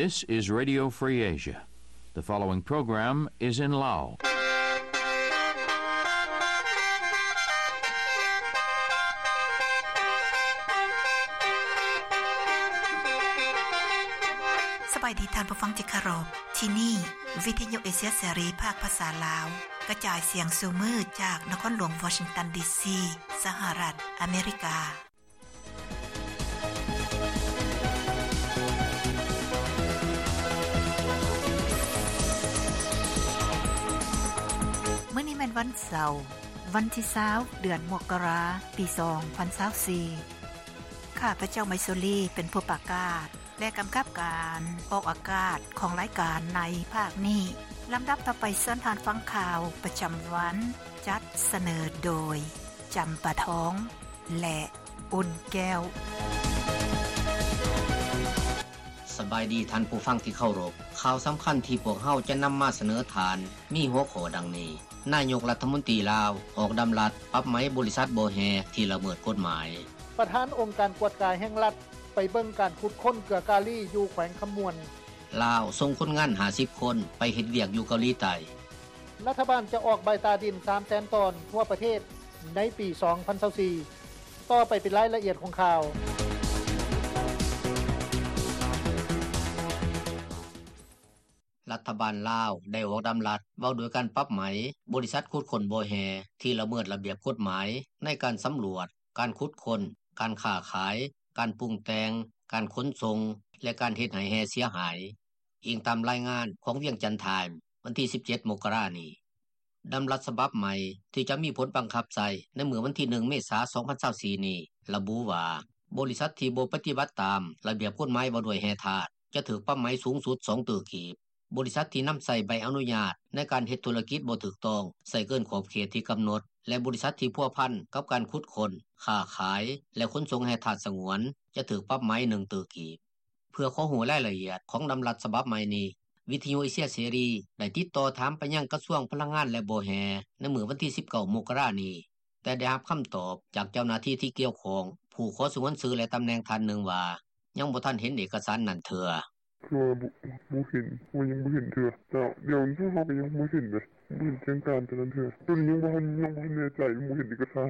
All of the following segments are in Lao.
This is Radio Free Asia. The following program is in Lao. ສະບາຍດີທ່ານຜູ້ຟັງທີ່ເຄົາລົບ. ທີ່ນີ້ ວິທະຍຸເອເຊຍເສລີ ພາກພາສາລາວ ກະຈາຍສຽງສູ່ມື້ຈາກນະຄອນຫຼວງວໍຊິງຕັນ ດີຊີ ສະຫະລັດອາເມລິກາ. ມື້ນີ້ແມ່ນວັນເສົາ, ວັນທີຊາວ ເດືອນມົກກະລາ ປີສອງພັນຊາວສີ່. ຂ້າພະເຈົ້າ ໄມຊູລີ ເປັນຜູ້ປະກາດ ແລະ ກຳກັບການອອກອາກາດຂອງລາຍການໃນພາກນີ້. ລຳດັບຕໍ່ໄປ ເຊີນທ່ານຟັງຂ່າວປະຈຳວັນ, ຈັດສະເໜີໂດຍ ຈຳປາທອງ ແລະ ອຸ່ນແກ້ວ. ສະບາຍດີທ່ານຜູ້ຟັງທີ່ເຄົາລົບ. ຂ່າວສຳຄັນທີ່ພວກເຮົາຈະນຳມາສະເໜີທ່ານ ມີຫົວຂໍ້ດັ່ງນີ້: ນາຍົກລັດຖະມົນຕີລາວອອກດຳລັດປັບໃໝບໍລິສັດບໍ່ແຮ່ທີ່ລະເມີດກົດໝາຍ. ປະທານອົງການກວດກາແຫ່ງລັດ ໄປເບິ່ງການຂຸດຄົ້ນເກືອກາລີຢູ່ແຂວງຄຳມ່ວນ. ລາວສົ່ງຄົນງານຫ້າສິບຄົນໄປເຮັດວຽກຢູ່ເກົາຫຼີໃຕ້. ລັດຖະບານຈະອອກໃບຕາດິນສາມແສນຕອນທົ່ວປະເທດໃນປີສອງພັນຊາວສີ່. ຕໍ່ໄປເປັນລາຍລະອຽດຂອງຂ່າວ. ລັດຖະບານລາວໄດ້ອອກດຳລັດວ່າດ້ວຍການປັບໃໝບໍລິສັດຂຸດຄົ້ນບໍ່ແຮ່ທີ່ລະເມີດລະບຽບກົດໝາຍໃນການສຳຫຼວດ, ການຂຸດຄົ້ນ, ການຄ້າຂາຍ, ການປຸງແຕ່ງ, ການຂົນສົ່ງ ແລະ ການເຮັດໃຫ້ແຮ່ເສຍຫາຍ, ອີງຕາມລາຍງານຂອງວຽງຈັນທາມ ວັນທີສິບເຈັດ ມົກກະລານີ້. ດຳລັດສະບັບໃໝ່ທີ່ຈະມີຜົນບັງຄັບໃຊ້ໃນມື້ວັນທີໜຶ່ງ ເມສາ ສອງພັນຊາວສີ່ນີ້ ລະບຸວ່າ ບໍລິສັດທີ່ບໍ່ປະຕິບັດຕາມລະບຽບກົດໝາຍວ່າດ້ວຍແຮ່ທາດ ຈະຖືກປັບໃໝສູງສຸດສອງຕື້ກີບ. ບໍລິສັດທີ່ນຳໃຊ້ໃບອະນຸຍາດໃນການເຮັດທຸລະກິດບໍ່ຖືກຕ້ອງ, ໃຊ້ເກີນຂອບເຂດທີ່ກຳນົດ ແລະ ບໍລິສັດທີ່ພົວພັນກັບການຂຸດຄົ້ນ, ຄ້າຂາຍ ແລະ ຂົນສົ່ງແຮ່ທາດສະຫງວນ ຈະຖືກປັບໃໝໜຶ່ງຕື້ກີບ. ເພື່ອຂໍຮູ້ລາຍລະອຽດຂອງດຳລັດສະບັບໃໝ່ນີ້, ວິທະຍຸເອເຊຍເສລີໄດ້ຕິດຕໍ່ຖາມໄປຍັງກະຊວງພະລັງງານ ແລະ ບໍ່ແຮ່ໃນມື້ວັນທີສິບເກົ້າ ມົກກະລານີ້, ແຕ່ໄດ້ຮັບຄຳຕອບຈາກເຈົ້າໜ້າທີ່ທີ່ກ່ຽວຂ້ອງ ຜູ້ຂໍສະຫງວນຊື່ ແລະ ຕຳແໜ່ງທ່ານໜຶ່ງວ່າ ຍັງບໍ່ທັນເຫັນເອກະສານນັ້ນເທື່ອ. ຄືວ່າບໍ່ ບໍ່ເຫັນ ຍັງບໍ່ເຫັນເທື່ອ. ເຈົ້າ ດຽວນີ້ເຮົາກໍຍັງບໍ່ເຫັນເດ້ ບໍ່ເຫັນແຈ້ງການຕົວນັ້ນເທື່ອ. ຕົວນີ້ຍັງບໍ່ທັນ ຍັງບໍ່ທັນແນ່ໃຈ ຍັງບໍ່ເຫັນເອກະສານ.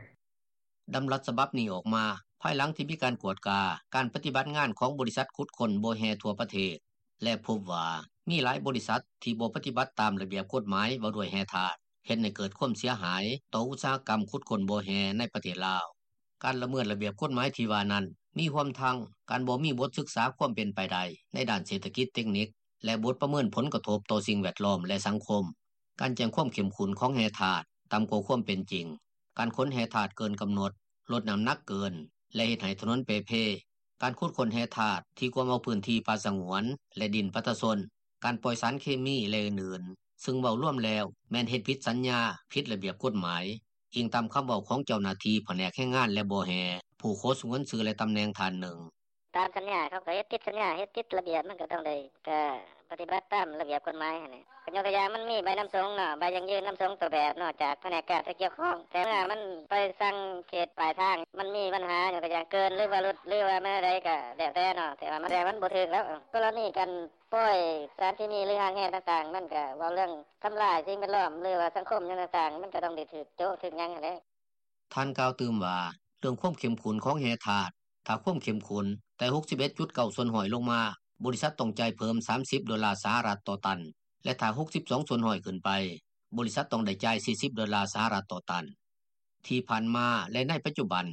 ດຳລັດສະບັບນີ້ອອກມາພາຍຫຼັງທີ່ມີການກວດກາການປະຕິບັດງານຂອງບໍລິສັດຂຸດຄົ້ນບໍ່ແຮ່ທົ່ວປະເທດ ແລະ ພົບວ່າມີຫຼາຍບໍລິສັດທີ່ບໍ່ປະຕິບັດຕາມລະບຽບກົດໝາຍວ່າດ້ວຍແຮ່ທາດ, ເຮັດໃຫ້ເກີດຄວາມເສຍຫາຍຕໍ່ອຸດສາຫະກຳຂຸດຄົ້ນບໍ່ແຮ່ໃນປະເທດລາວ. ການລະເມີດລະບຽບກົດໝາຍທີ່ວ່ານັ້ນ ມີຮວມທັງການບໍ່ມີບົດສຶກສາຄວາມເປັນໄປໄດ້ໃນດ້ານເສດຖະກິດເຕັກນິກ ແລະ ບົດປະເມີນຜົນກະທົບຕໍ່ສິ່ງແວດລ້ອມ ແລະ ສັງຄົມ, ການແຈ້ງຄວາມເຂັ້ມຂຸ້ນຂອງແຮ່ທາດຕ່ຳກວ່າຄວາມເປັນຈິງ, ການຂົນແຮ່ທາດເກີນກຳນົດ, ລົດນ້ຳໜັກເກີນ ແລະ ເຮັດໃຫ້ຖະໜົນເປ່ເພ, ການຂຸດຄົ້ນແຮ່ທາດທີ່ກວມເອົາພື້ນທີ່ປ່າສະຫງວນ ແລະ ດິນປະຊາຊົນ, ການປ່ອຍສານເຄມີ ແລະ ອື່ນໆ ຊຶ່ງເວົ້າລວມແລ້ວແມ່ນເຮັດຜິດສັນຍາ, ຜິດລະບຽບກົດໝາຍ, ອີງຕາມຄຳເວົ້າຂອງເຈົ້າໜ້າທີ່ພະແນກແຮງງານ ແລະ ບໍ່ແຮ່ ຜູ້ຂໍສະຫງວນຊື່ ແລະ ຕຳແໜ່ງທ່ານໜຶ່ງ. ຕາມສັນຍາເຂົາກໍເຮັດຜິດສັນຍາ ເຮັດຜິດລະບຽບ ມັນກໍຕ້ອງໄດ້ ກໍປະຕິບັດຕາມລະບຽບກົດໝາຍຫັ້ນແຫຼະ. ກໍຍົກຕົວຢ່າງ ມັນມີໃບນຳສົ່ງເນາະ, ໃບຢັ້ງຢືນນຳສົ່ງຕົວແບບເນາະ ຈາກພະແນກການທີ່ກ່ຽວຂ້ອງ, ແຕ່ເມື່ອມັນໄປສັ່ງເຂດປາຍທາງ ມັນມີບັນຫາ ຍົກຕົວຢ່າງເກີນ ຫຼືວ່າຫຼຸດ ຫຼືວ່າມັນແນວໃດກໍແລ້ວແຕ່ເນາະ, ແຕ່ວ່າມັນ ແຕ່ມັນບໍ່ຖືກແລ້ວ. ກໍລະນີການປ່ອຍສານເຄມີ ຫຼື ຮ້າງແຮ່ຕ່າງໆ ມັນກໍເວົ້າເລື່ອງທຳລາຍສິ່ງແວດລ້ອມ ຫຼືວ່າສັງຄົມຫຍັງຕ່າງໆ ມັນກໍຕ້ອງໄດ້ຖືກໂຈະຖືກຫຍັງຫັ້ນແຫຼະ. ທ່ານກ່າວຕື່ມວ່າ ເລື່ອງຄວາມເຂັ້ມຂຸ້ນຂອງແຮ່ທາດ, ຖ້າຄວາມເຂັ້ມຂຸ້ນແຕ່ ຫົກສິບເອັດຈຸດເກົ້າສ່ວນຮ້ອຍ ລົງມາ, ບໍລິສັດຕ້ອງຈ່າຍເພີ່ມ ສາມສິບໂດລາສະຫະລັດຕໍ່ຕັນ ແລະ ຖ້າ ຫົກສິບສອງສ່ວນຮ້ອຍ ຂຶ້ນໄປ, ບໍລິສັດຕ້ອງໄດ້ຈ່າຍ ສີ່ສິບໂດລາສະຫະລັດຕໍ່ຕັນ. ທີ່ຜ່ານມາ ແລະ ໃນປັດຈຸບັນ,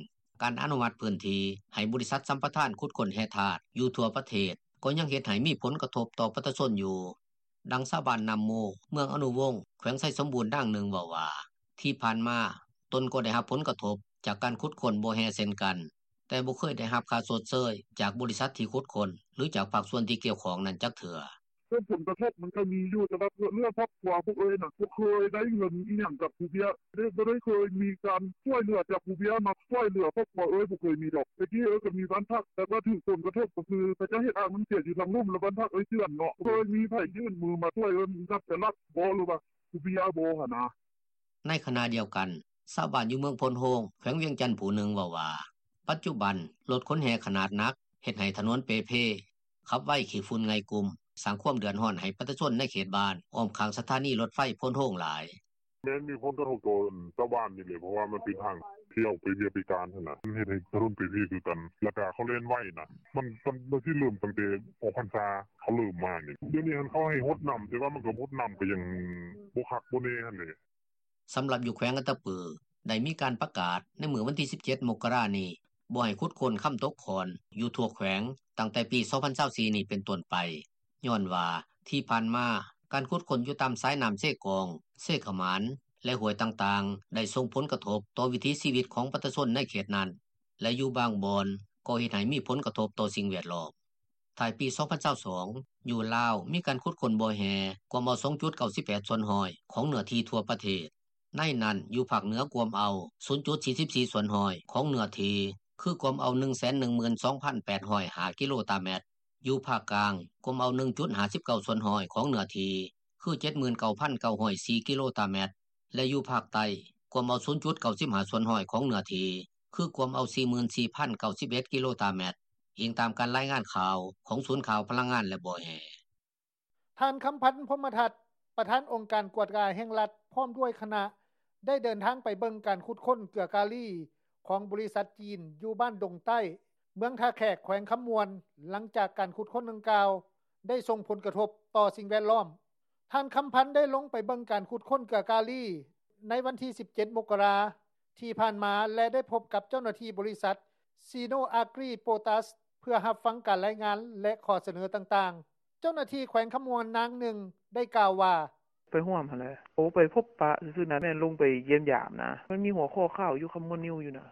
ການອະນຸມັດພື້ນທີ່ໃຫ້ບໍລິສັດສຳປະທານຂຸດຄົ້ນແຮ່ທາດຢູ່ທົ່ວປະເທດ ກໍຍັງເຮັດໃຫ້ມີຜົນກະທົບຕໍ່ປະຊາຊົນຢູ່. ດັ່ງຊາວບ້ານນ້ຳມູ ເມືອງອະນຸວົງ ແຂວງໄຊສົມບູນ ນາງໜຶ່ງເວົ້າວ່າ ທີ່ຜ່ານມາ ຕົນກໍໄດ້ຮັບຜົນກະທົບຈາກການຂຸດຄົ້ນບໍ່ແຮ່ເຊັ່ນກັນ, ແຕ່ບໍ່ເຄີຍໄດ້ຮັບຄ່າຊົດເຊີຍຈາກບໍລິສັດທີ່ຂຸດຄົ້ນ ຫຼື ຈາກພາກສ່ວນທີ່ກ່ຽວຂ້ອງນັ້ນຈັກເທື່ອ. ເລື່ອງຜົນກະທົບມັນກໍມີຢູ່ ແຕ່ວ່າເລື່ອງຄອບຄົວພວກເອື້ອຍນະ ບໍ່ເຄີຍໄດ້ເງິນອີ່ຫຍັງຈາກຜູ້ເບ້ຍເດ້, ບໍ່ໄດ້ເຄີຍມີການຊ່ວຍເຫຼືອຈາກຜູ້ເບ້ຍມາຊ່ວຍເຫຼືອຄອບຄົວເອື້ອຍ ບໍ່ເຄີຍມີດອກ. ແຕ່ກີ້ເອື້ອຍກໍມີບ້ານພັກ ແຕ່ວ່າຖືກຜົນກະທົບກໍຄືເຂົາເຈົ້າເຮັດອ່າງນ້ຳເສຍຢູ່ທາງລຸ່ມ ແລ້ວບ້ານພັກເອື້ອຍເຈື່ອນເນາະ, ເຄີຍມີໃຜຍື່ນມືມາຊ່ວຍເອື້ອຍ ລັດຈະລັດບໍ່ ຫຼືວ່າຜູ້ເບ້ຍບໍ່ຫັ້ນນະ. ໃນຂະນະດຽວກັນ, ຊາວບ້ານຢູ່ເມືອງໂພນໂຮງ ແຂວງວຽງຈັນ ຜູ້ໜຶ່ງເວົ້າວ່າ ປັດຈຸບັນ ລົດຂົນແຮ່ຂະໜາດໜັກເຮັດໃຫ້ຖະໜົນເປ່ເພ, ຂັບໄວຂີ້ຝຸ່ນໄງ່ກຸ້ມ, ສ້າງຄວາມເດືອດຮ້ອນໃຫ້ປະຊາຊົນໃນເຂດບ້ານ ອ້ອມຂ້າງສະຖານີລົດໄຟໂພນໂຮງຫຼາຍ. ແມ່ນມີຜົນກະທົບຕໍ່ຊາວບ້ານນີ້ແຫຼະ ເພາະວ່າມັນເປັນທາງທີ່ອອກໄປວຽກໄປການຫັ້ນນະ ມັນເຮັດໃຫ້ຖະໜົນເປັນເພຄືກັນ ແລ້ວກະເຂົາແລ່ນໄວນະ ມັນ ມັນຊິເລີ່ມຕັ້ງແຕ່ອອກພັນສາ ເຂົາເລີ່ມມານີ້ ດຽວນີ້ຫັ້ນເຂົາໃຫ້ຫົດນ້ຳ ແຕ່ວ່າມັນກໍຫົດນ້ຳກໍຍັງບໍ່ຄັກບໍ່ແນ່ຫັ້ນແຫຼະ. ສຳລັບຢູ່ແຂວງອັດຕະປື ໄດ້ມີການປະກາດໃນມື້ວັນທີສິບເຈັດ ມົກກະລານີ້ ບໍ່ໃຫ້ຂຸດຄົ້ນຄຳຕົກຄ້ອນຢູ່ທົ່ວແຂວງ ຕັ້ງແຕ່ປີສອງພັນຊາວສີ່ນີ້ເປັນຕົ້ນໄປ ຍ້ອນວ່າທີ່ຜ່ານມາ ການຂຸດຄົ້ນຢູ່ຕາມສາຍນ້ຳເຊກອງ, ເຊຂະໝານ ແລະ ຫ້ວຍຕ່າງໆ ໄດ້ສົ່ງຜົນກະທົບຕໍ່ວິຖີຊີວິດຂອງປະຊາຊົນໃນເຂດນັ້ນ ແລະ ຢູ່ບາງບ່ອນກໍເຮັດໃຫ້ມີຜົນກະທົບຕໍ່ສິ່ງແວດລ້ອມ. ທ້າຍປີສອງພັນຊາວສອງ ຢູ່ລາວມີການຂຸດຄົ້ນບໍ່ແຮ່ກວມເອົາສອງຈຸດເກົ້າສິບແປດສ່ວນຮ້ອຍຂອງເນື້ອທີ່ທົ່ວປະເທດ. ໃນນັ້ນ ຢູ່ພາກເໜືອກວມເອົາສູນຈຸດສີ່ສິບສີ່ສ່ວນຮ້ອຍຂອງເນື້ອທີ່ ຄືກວມເອົາໜຶ່ງແສນໜຶ່ງໝື່ນສອງພັນແປດຮ້ອຍຫ້າກິໂລຕາແມັດ, ຢູ່ພາກກາງກວມເອົາໜຶ່ງຈຸດຫ້າສິບເກົ້າສ່ວນຮ້ອຍຂອງເນື້ອທີ່ ຄືເຈັດໝື່ນເກົ້າພັນເກົ້າຮ້ອຍສີ່ກິໂລຕາແມັດ ແລະ ຢູ່ພາກໃຕ້ກວມເອົາສູນຈຸດເກົ້າສິບຫ້າສ່ວນຮ້ອຍຂອງເນື້ອທີ່ ຄືກວມເອົາສີ່ໝື່ນສີ່ພັນເກົ້າສິບເອັດກິໂລຕາແມັດ, ອີງຕາມການລາຍງານຂ່າວຂອງສູນຂ່າວພະລັງງານ ແລະ ບໍ່ແຮ່. ທ່ານ ຄຳພັນ ພົມມະທັດ ປະທານອົງການກວດກາແຫ່ງລັດ ພ້ອມດ້ວຍຄະນະ ໄດ້ເດີນທາງໄປເບິ່ງການຂຸດຄົ້ນເກືອກາລີຂອງບໍລິສັດຈີນ ຢູ່ບ້ານດົງໃຕ້ ເມືອງທ່າແຂກ ແຂວງຄຳມ່ວນ ຫຼັງຈາກການຂຸດຄົ້ນດັ່ງກ່າວໄດ້ສົ່ງຜົນກະທົບຕໍ່ສິ່ງແວດລ້ອມ. ທ່ານ ຄຳພັນ ໄດ້ລົງໄປເບິ່ງການຂຸດຄົ້ນເກືອກາລີໃນວັນທີສິບເຈັດ ມົກກະລາ ທີ່ຜ່ານມາ ແລະ ໄດ້ພົບກັບເຈົ້າໜ້າທີ່ບໍລິສັດ ຊີໂນອາກຣີໂປຕາສ ເພື່ອຮັບຟັງການລາຍງານ ແລະ ຂໍ້ສະເໜີຕ່າງໆ. ເຈົ້າໜ້າທີ່ແຂວງຄຳມ່ວນນາງໜຶ່ງໄດ້ກ່າວວ່າ: ໄປຮ່ວມຫັ້ນແຫຼະ ໂອ ໄປພົບປະຊື່ໆນະ ແມ່ນລົງໄປຢ້ຽມຢາມນະ ມັນມີຫົວຂໍ້ຂ່າວຢູ່ຄຳມ່ວນນິວຢູ່ນະ.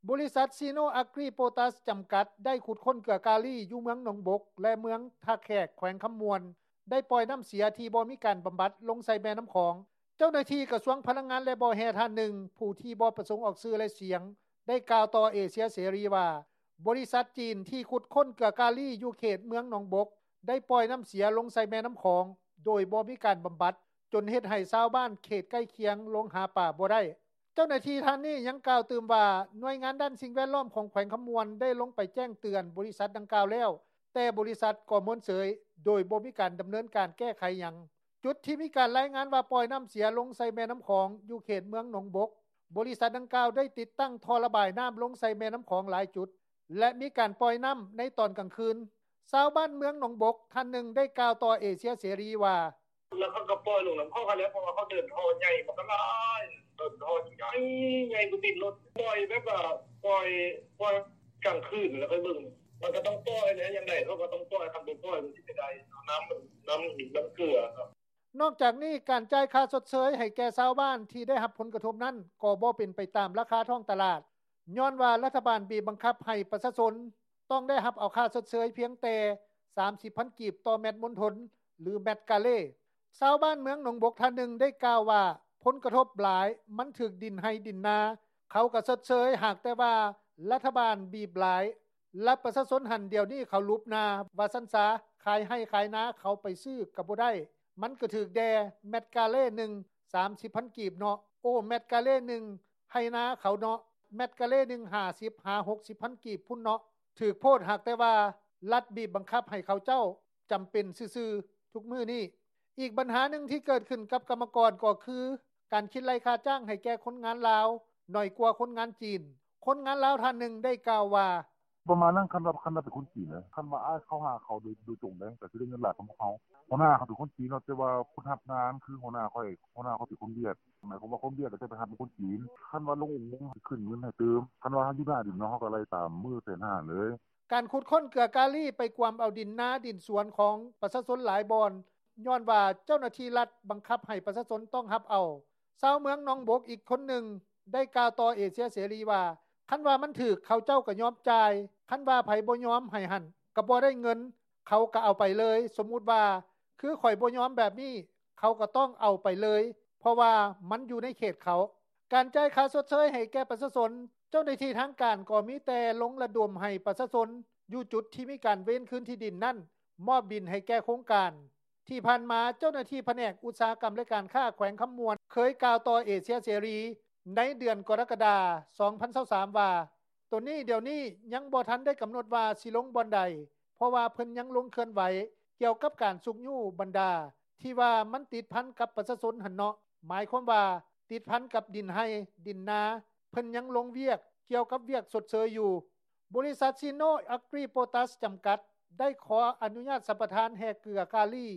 ບໍລິສັດ ຊີໂນອາກຣີໂປຕາສ ຈຳກັດ ໄດ້ຂຸດຄົ້ນເກືອກາລີຢູ່ເມືອງໜອງບົກ ແລະ ເມືອງທ່າແຂກ ແຂວງຄຳມ່ວນ ໄດ້ປ່ອຍນ້ຳເສຍທີ່ບໍ່ມີການບຳບັດລົງໃສ່ແມ່ນ້ຳຂອງ. ເຈົ້າໜ້າທີ່ກະຊວງພະລັງງານ ແລະ ບໍ່ແຮ່ທ່ານໜຶ່ງ ຜູ້ທີ່ບໍ່ປະສົງອອກຊື່ ແລະ ສຽງ ໄດ້ກ່າວຕໍ່ເອເຊຍເສລີວ່າ ບໍລິສັດຈີນທີ່ຂຸດຄົ້ນເກືອກາລີຢູ່ເຂດເມືອງໜອງບົກ ໄດ້ປ່ອຍນ້ຳເສຍລົງໃສ່ແມ່ນ້ຳຂອງ ໂດຍບໍ່ມີການບຳບັດ ຈົນເຮັດໃຫ້ຊາວບ້ານເຂດໃກ້ຄຽງລົງຫາປາບໍ່ໄດ້. ເຈົ້າໜ້າທີ່ທ່ານນີ້ຍັງກ່າວຕື່ມວ່າ ໜ່ວຍງານດ້ານສິ່ງແວດລ້ອມຂອງແຂວງຄຳມ່ວນ ໄດ້ລົງໄປແຈ້ງເຕືອນບໍລິສັດດັ່ງກ່າວແລ້ວ, ແຕ່ບໍລິສັດກໍເມີນເສີຍ ໂດຍບໍ່ມີການດຳເນີນການແກ້ໄຂຫຍັງ. ຈຸດທີ່ມີການລາຍງານວ່າປ່ອຍນ້ຳເສຍລົງໃສ່ແມ່ນ້ຳຂອງ ຢູ່ເຂດເມືອງໜອງບົກ, ບໍລິສັດດັ່ງກ່າວໄດ້ຕິດຕັ້ງທໍ່ລະບາຍນ້ຳລົງໃສ່ແມ່ນ້ຳຂອງຫຼາຍຈຸດ ແລະ ມີການປ່ອຍນ້ຳໃນຕອນກາງຄືນ. ຊາວບ້ານເມືອງໜອງບົກທ່ານໜຶ່ງໄດ້ກ່າວຕໍ່ເອເຊຍເສລີວ່າ: ແລ້ວເຂົາກໍປ່ອຍລົງນຳຂອງຫັ້ນແຫຼະ ເພາະວ່າເຂົາເດີນທໍ່ໃຫຍ່ ມັນກໍຫຼາຍ ເດີນທໍ່ໃຫຍ່ໆ ບໍ່ຕິດລົດ ປ່ອຍແບບວ່າ ປ່ອຍ ປ່ອຍກາງຄືນ ແລ້ວຄ່ອຍເບິ່ງ ມັນກໍຕ້ອງປ່ອຍແຫຼະ ຢ່າງໃດເຂົາກໍຕ້ອງປ່ອຍ ຄັນບໍ່ປ່ອຍມັນຊິໄປໄດ້ ນ້ຳ ນ້ຳ ນ້ຳເກືອເນາະ. ນອກຈາກນີ້ ການຈ່າຍຄ່າຊົດເຊີຍໃຫ້ແກ່ຊາວບ້ານທີ່ໄດ້ຮັບຜົນກະທົບນັ້ນ ກໍບໍ່ເປັນໄປຕາມລາຄາທ້ອງຕະຫຼາດ ຍ້ອນວ່າລັດຖະບານບີບບັງຄັບໃຫ້ປະຊາຊົນ ຕ້ອງໄດ້ຮັບເອົາຄ່າຊົດເຊີຍພຽງແຕ່ສາມສິບພັນກີບຕໍ່ແມັດມົນທົນ ຫຼື ແມັດກາເລ. ຊາວບ້ານເມືອງໜອງບົກທ່ານໜຶ່ງໄດ້ກ່າວວ່າ ຜົນກະທົບຫຼາຍ ມັນຖືກດິນໄຮ່ດິນນາ ເຂົາກໍຊົດເຊີຍ ຫາກແຕ່ວ່າລັດຖະບານບີບຫຼາຍ ແລະ ປະຊາຊົນຫັ້ນດຽວນີ້ເຂົາຫຼຸບໜ້າ ວ່າຊັ້ນຊະ ຂາຍໄຮ່ຂາຍນາ ເຂົາໄປຊື້ກໍບໍ່ໄດ້ ມັນກໍຖືກແດ່ ແມັດກາເລໜຶ່ງ ສາມສິບພັນກີບເນາະ ໂອ ແມັດກາເລໜຶ່ງ ໄຮ່ນາເຂົາເນາະ ແມັດກາເລໜຶ່ງ ຫ້າສິບຫາຫົກສິບພັນກີບພຸ້ນເນາະ ຖືກໂພດ ຫາກແຕ່ວ່າລັດບີບບັງຄັບໃຫ້ເຂົາເຈົ້າຈຳເປັນຊື່ໆ ທຸກມື້ນີ້. ອີກບັນຫາໜຶ່ງທີ່ເກີດຂຶ້ນກັບກຳມະກອນກໍຄື ການຄິດໄລ່ຄ່າຈ້າງໃຫ້ແກ່ຄົນງານລາວ ໜ້ອຍກວ່າຄົນງານຈີນ. ຄົນງານລາວທ່ານໜຶ່ງໄດ້ກ່າວວ່າ: ປະມານນັ້ນ ຄັນວ່າ ຄັນວ່າເປັນຄົນຈີນເດ້ ຄັນວ່າອ້າຍເຂົ້າຫາເຂົາໂດຍ ໂດຍຕົງເດ້ ກໍຊິໄດ້ເງິນຫຼາຍກວ່າພວກເຮົາ. ຫົວໜ້າເຂົາເປັນຄົນຈີນເນາະ ແຕ່ວ່າຜູ້ຮັບງານຄືຫົວໜ້າຂ້ອຍ ຫົວໜ້າຂ້ອຍເປັນຄົນຫວຽດ ໝາຍຄວາມວ່າຄົນຫວຽດກໍຈະໄປຮັບເປັນຄົນຈີນ ຄັນວ່າລົງອຸໂມງຊິຂຶ້ນເງິນໃຫ້ຕື່ມ ຄັນວ່າຢູ່ໜ້າດິນເນາະ ເຮົາກໍໄລ່ຕາມມື້ແສນຫ້າເລີຍ. ການຂຸດຄົ້ນເກືອກາລີໄປກວມເອົາດິນນາດິນສວນຂອງປະຊາຊົນຫຼາຍບ່ອນ ຍ້ອນວ່າເຈົ້າໜ້າທີ່ລັດບັງຄັບໃຫ້ປະຊາຊົນຕ້ອງຮັບເອົາ. ຊາວເມືອງໜອງບົກອີກຄົນໜຶ່ງໄດ້ກ່າວຕໍ່ເອເຊຍເສລີວ່າ ຄັນວ່າມັນຖືກ ເຂົາເຈົ້າກໍຍອມຈ່າຍ ຄັນວ່າໃຜບໍ່ຍອມໃຫ້ຫັ້ນ ກໍບໍ່ໄດ້ເງິນ ເຂົາກໍເອົາໄປເລີຍ. ສົມມຸດວ່າ ຄືຂ້ອຍບໍ່ຍອມແບບນີ້ ເຂົາກໍຕ້ອງເອົາໄປເລີຍ ເພາະວ່າມັນຢູ່ໃນເຂດເຂົາ. ການຈ່າຍຄ່າຊົດເຊີຍໃຫ້ແກ່ປະຊາຊົນ ເຈົ້າໜ້າທີ່ທາງການກໍມີແຕ່ລົງລະດົມໃຫ້ປະຊາຊົນຢູ່ຈຸດທີ່ມີການເວນຄືນທີ່ດິນນັ້ນ ມອບດິນໃຫ້ແກ່ໂຄງການ. ທີ່ຜ່ານມາ ເຈົ້າໜ້າທີ່ພະແນກອຸດສາຫະກຳ ແລະ ການຄ້າແຂວງຄຳມ່ວນ ເຄີຍກ່າວຕໍ່ເອເຊຍເສລີໃນເດືອນກໍລະກະດາ ສອງພັນຊາວສາມ ວ່າ ໂຕນີ້ດຽວນີ້ຍັງບໍ່ທັນໄດ້ກຳນົດວ່າຊິລົງບ່ອນໃດ ເພາະວ່າເພິ່ນຍັງລົງເຄື່ອນໄຫວ ກ່ຽວກັບການຊຸກຍູ້ບັນດາ ທີ່ວ່າມັນຕິດພັນກັບປະຊາຊົນຫັ້ນເນາະ ໝາຍຄວາມວ່າຕິດພັນກັບດິນໄຮ່ດິນນາ ເພິ່ນຍັງລົງວຽກກ່ຽວກັບວຽກຊົດເຊີຍຢູ່. ບໍລິສັດ ຊິໂນ ອາກຣີ ໂປຕາສ ຈຳກັດ ໄດ້ຂໍອະນຸຍາດສຳປະທານແຮ່ເກືອກາລີ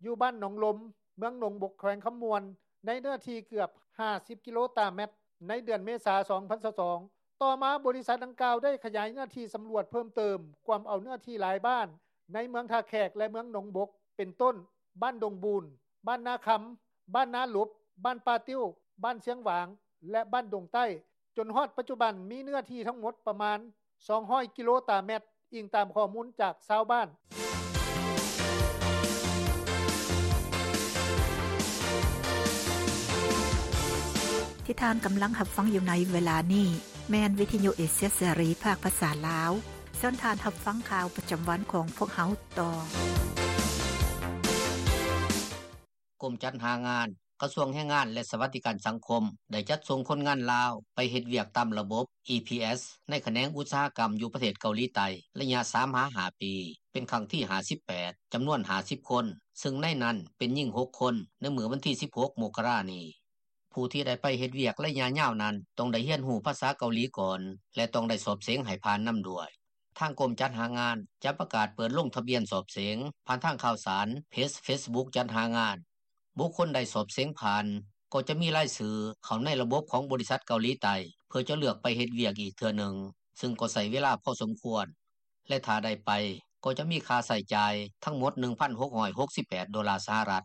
ຢູ່ບ້ານໜອງລົມ ເມືອງໜອງບົກ ແຂວງຄຳມ່ວນ ໃນເນື້ອທີ່ເກືອບຫ້າສິບກິໂລຕາແມັດ ໃນເດືອນເມສາ ສອງພັນຊາວສອງ. ຕໍ່ມາບໍລິສັດດັ່ງກ່າວໄດ້ຂະຫຍາຍເນື້ອທີ່ສຳຫຼວດເພີ່ມເຕີມ ກວມເອົາເນື້ອທີ່ຫຼາຍບ້ານໃນເມືອງທ່າແຂກ ແລະ ເມືອງໜອງບົກ ເປັນຕົ້ນ ບ້ານດົງບູນ, ບ້ານນາຄຳ, ບ້ານນາຫຼົບ, ບ້ານປ່າຕິ້ວ, ບ້ານຊຽງຫວາງ ແລະ ບ້ານດົງໃຕ້ ຈົນຮອດປັດຈຸບັນມີເນື້ອທີ່ທັງໝົດປະມານສອງຮ້ອຍກິໂລຕາແມັດ, ອີງຕາມຂໍ້ມູນຈາກຊາວບ້ານ. ທີ່ທ່ານກຳລັງຮັບຟັງຢູ່ໃນເວລານີ້ ແມ່ນວິທະຍຸເອເຊຍເສລີ ພາກພາສາລາວ. ເຊີນທ່ານຮັບຟັງຂ່າວປະຈຳວັນຂອງພວກເຮົາຕໍ່. ກົມຈັດຫາງານ ກະຊວງແຮງງານ ແລະ ສະຫວັດດີການສັງຄົມ ໄດ້ຈັດສົ່ງຄົນງານລາວໄປເຮັດວຽກຕາມລະບົບ EPS ໃນຂະແໜງອຸດສາຫະກຳຢູ່ປະເທດເກົາຫຼີໃຕ້ ໄລຍະສາມຫາຫ້າປີ ເປັນຄັ້ງທີຫ້າສິບແປດ ຈຳນວນຫ້າສິບຄົນ, ເຊິ່ງໃນນັ້ນເປັນຍິງຫົກຄົນ ໃນມື້ວັນທີສິບຫົກ ມົກກະລານີ້. ຜູ້ທີ່ໄດ້ໄປເຮັດວຽກໄລຍະຍາວນັ້ນ ຕ້ອງໄດ້ຮຽນຮູ້ພາສາເກົາຫຼີກ່ອນ ແລະ ຕ້ອງໄດ້ສອບເສັງໃຫ້ຜ່ານນຳດ້ວຍ. ທາງກົມຈັດຫາງານຈະປະກາດເປີດລົງທະບຽນສອບເສັງຜ່ານທາງຂ່າວສານເພຈ Facebook ຈັດຫາງານ. ບຸກຄົນໃດສອບເສັງຜ່ານ ກໍຈະມີລາຍຊື່ເຂົ້າໃນລະບົບຂອງບໍລິສັດເກົາຫຼີໃຕ້ ເພື່ອຈະເລືອກໄປເຮັດວຽກອີກເທື່ອໜຶ່ງ, ເຊິ່ງກໍໃຊ້ເວລາພໍສົມຄວນ ແລະ ຖ້າໄດ້ໄປ ກໍຈະມີຄ່າໃຊ້ຈ່າຍທັງໝົດ ໜຶ່ງພັນຫົກຮ້ອຍຫົກສິບແປດໂດລາສະຫະລັດ.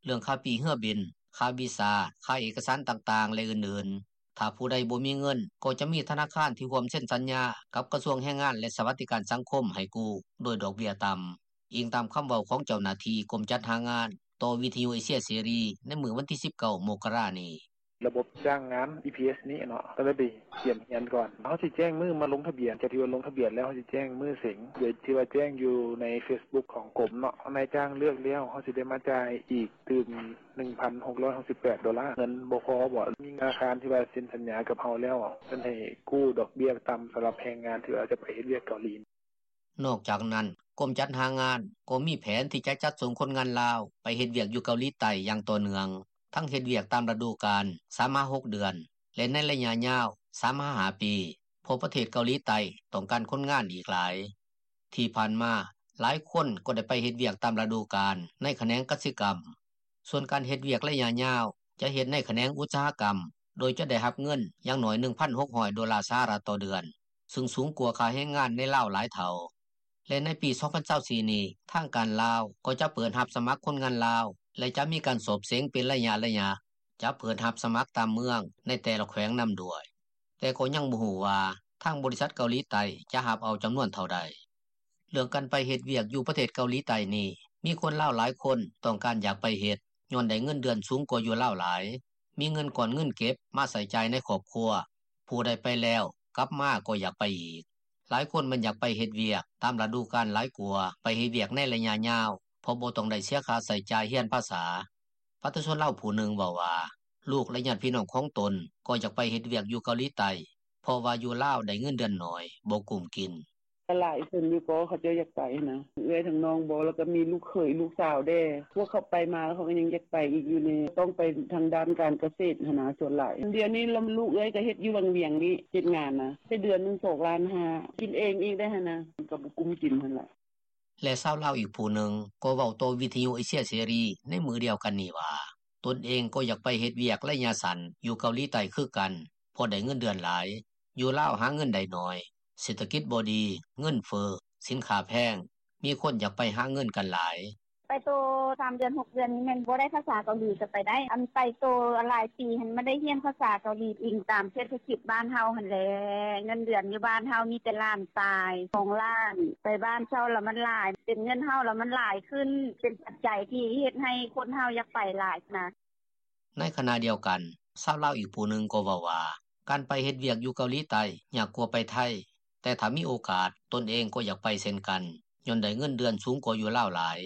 ເລື່ອງຄ່າປີ້ເຮືອບິນ, ຄ່າວີຊາ, ຄ່າເອກະສານຕ່າງໆ ແລະ ອື່ນໆ. ຖ້າຜູ້ໃດບໍ່ມີເງິນ ກໍຈະມີທະນາຄານທີ່ຮ່ວມເຊັນສັນຍາກັບກະຊວງແຮງງານ ແລະ ສະຫວັດດີການສັງຄົມໃຫ້ກູ້ໂດຍດອກເບ້ຍຕ່ຳ, ອີງຕາມຄຳເວົ້າຂອງເຈົ້າໜ້າທີ່ກົມຈັດຫາງານຕໍ່ວິທະຍຸເອເຊຍເສລີໃນມື້ວັນທີສິບເກົ້າ ມົກກະລານີ້. ລະບົບຈ້າງງານ EPS ນີ້ເນາະ ຕ້ອງໄດ້ໄປກຽມຮຽນກ່ອນ. ເຮົາຊິແຈ້ງມື້ມາລົງທະບຽນ, ຈາກທີ່ວ່າລົງທະບຽນແລ້ວ ເຮົາຊິແຈ້ງມື້ເສັງ ໂດຍທີ່ວ່າແຈ້ງຢູ່ໃນ Facebook ຂອງກົມເນາະ. ນາຍຈ້າງເລືອກແລ້ວ ເຮົາຊິໄດ້ມາຈ່າຍອີກຕື່ມ ໜຶ່ງພັນຫົກຮ້ອຍຫົກສິບແປດໂດລາ. ເງິນບໍ່ພໍບໍ? ມີທະນາຄານທີ່ວ່າເຊັນສັນຍາກັບເຮົາແລ້ວ ເພິ່ນໃຫ້ກູ້ດອກເບ້ຍຕ່ຳສຳລັບແຮງງານທີ່ວ່າຈະໄປເຮັດວຽກເກົາຫຼີ. ນອກຈາກນັ້ນ, ກົມຈັດຫາງານກໍມີແຜນທີ່ຈະຈັດສົ່ງຄົນງານລາວໄປເຮັດວຽກຢູ່ເກົາຫຼີໃຕ້ຢ່າງຕໍ່ເນື່ອງ, ທັງເຮັດວຽກຕາມລະດູການ ສາມຫາຫົກເດືອນ ແລະ ໃນໄລຍະຍາວ ສາມຫາຫ້າປີ, ເພາະປະເທດເກົາຫຼີໃຕ້ຕ້ອງການຄົນງານອີກຫຼາຍ. ທີ່ຜ່ານມາ, ຫຼາຍຄົນກໍໄດ້ໄປເຮັດວຽກຕາມລະດູການໃນຂະແໜງກະສິກຳ. ສ່ວນການເຮັດວຽກໄລຍະຍາວ ຈະເຮັດໃນຂະແໜງອຸດສາຫະກຳ ໂດຍຈະໄດ້ຮັບເງິນຢ່າງໜ້ອຍ ໜຶ່ງພັນຫົກຮ້ອຍໂດລາສະຫະລັດຕໍ່ເດືອນ, ເຊິ່ງສູງກວ່າຄ່າແຮງງານໃນລາວຫຼາຍເທົ່າ. ແລະ ໃນປີສອງພັນຊາວສີ່ນີ້, ທາງການລາວກໍຈະເປີດຮັບສະໝັກຄົນງານລາວ ແລະ ຈະມີການສອບເສັງເປັນໄລຍະໆ, ຈະເປີດຮັບສະໝັກຕາມເມືອງໃນແຕ່ລະແຂວງນຳດ້ວຍ. ແຕ່ກໍຍັງບໍ່ຮູ້ວ່າທາງບໍລິສັດເກົາຫຼີໃຕ້ຈະຮັບເອົາຈຳນວນເທົ່າໃດ. ເລື່ອງການໄປເຮັດວຽກຢູ່ປະເທດເກົາຫຼີໃຕ້ນີ້ ມີຄົນລາວຫຼາຍຄົນຕ້ອງການຢາກໄປເຮັດ ຍ້ອນໄດ້ເງິນເດືອນສູງກວ່າຢູ່ລາວຫຼາຍ, ມີເງິນກ້ອນເງິນເກັບມາໃຊ້ຈ່າຍໃນຄອບຄົວ, ຜູ້ໃດໄປແລ້ວກັບມາກໍຢາກໄປອີກ. ຫຼາຍຄົນມັນຢາກໄປເຮັດວຽກຕາມລະດູການຫຼາຍກວ່າໄປເຮັດວຽກໃນໄລຍະຍາວ ເພາະບໍ່ຕ້ອງໄດ້ເສຍຄ່າໃຊ້ຈ່າຍຮຽນພາສາ. ປະຊາຊົນລາວຜູ້ໜຶ່ງເວົ້າວ່າ ລູກ ແລະ ຍາດພີ່ນ້ອງຂອງຕົນກໍຢາກໄປເຮັດວຽກຢູ່ເກົາຫຼີໃຕ້ ເພາະວ່າຢູ່ລາວໄດ້ເງິນເດືອນໜ້ອຍ ບໍ່ກຸ້ມກິນ. ກໍຫຼາຍຄົນຢູ່ກໍເຂົາເຈົ້າຢາກໄປຫັ້ນນະ ເອື້ອຍທັງນ້ອງບໍ ແລ້ວກໍມີລູກເຂີຍລູກສາວແດ່. ພວກເຂົາໄປມາແລ້ວເຂົາກໍຍັງຢາກໄປອີກຢູ່ນີ້ ຕ້ອງໄປທາງດ້ານການກະເສດຫັ້ນນະ ສ່ວນຫຼາຍ. ດຽວນີ້ລຳ ລູກເອື້ອຍກໍເຮັດຢູ່ວັງວຽງນີ້ ເຮັດງານນະ ໄດ້ເດືອນໜຶ່ງສອງລ້ານຫ້າ ກິນເອງອີກໄດ້ຫັ້ນນະ ມັນກໍບໍ່ກຸ້ມກິນຫັ້ນລະ. ແລະ ຊາວລາວອີກຜູ້ໜຶ່ງກໍເວົ້າຕໍ່ວິທະຍຸເອເຊຍເສລີໃນມື້ດຽວກັນນີ້ວ່າ ຕົນເອງກໍຢາກໄປເຮັດວຽກໄລຍະສັ້ນຢູ່ເກົາຫຼີໃຕ້ຄືກັນ ເພາະໄດ້ເງິນເດືອນຫຼາຍ, ຢູ່ລາວຫາເງິນໄດ້ໜ້ອຍ, ເສດຖະກິດບໍ່ດີ, ເງິນເຟີ້, ສິນຄ້າແພງ, ມີຄົນຢາກໄປຫາເງິນກັນຫຼາຍ. ໄປໂຕສາມເດືອນຫົກເດືອນນີ້ແມ່ນບໍ່ໄດ້ພາສາເກົາຫຼີກໍໄປໄດ້, ອັນໄປໂຕຫຼາຍປີຫັ້ນມັນໄດ້ຮຽນພາສາເກົາຫຼີ ອີງຕາມເສດຖະກິດບ້ານເຮົາຫັ້ນແຫຼະ. ເງິນເດືອນຢູ່ບ້ານເຮົາມີແຕ່ລ້ານປາຍ ສອງລ້ານ, ໄປບ້ານເຊົ່າລະມັນຫຼາຍ, ເປັນເງິນເຮົາລະມັນຫຼາຍຂຶ້ນ, ເປັນປັດໄຈທີ່ເຮັດໃຫ້ຄົນເຮົາຢາກໄປຫຼາຍນະ. ໃນຂະນະດຽວກັນ, ຊາວລາວອີກຜູ້ໜຶ່ງກໍເວົ້າວ່າ ການໄປເຮັດວຽກຢູ່ເກົາຫຼີໃຕ້ຍາກກວ່າໄປໄທ, ແຕ່ຖ້າມີໂອກາດ ຕົນເອງກໍຢາກໄປເຊັ່ນກັນ ຍ້ອນໄດ້ເງິນເດືອນສູງກວ່າຢູ່ລາວຫຼາຍ,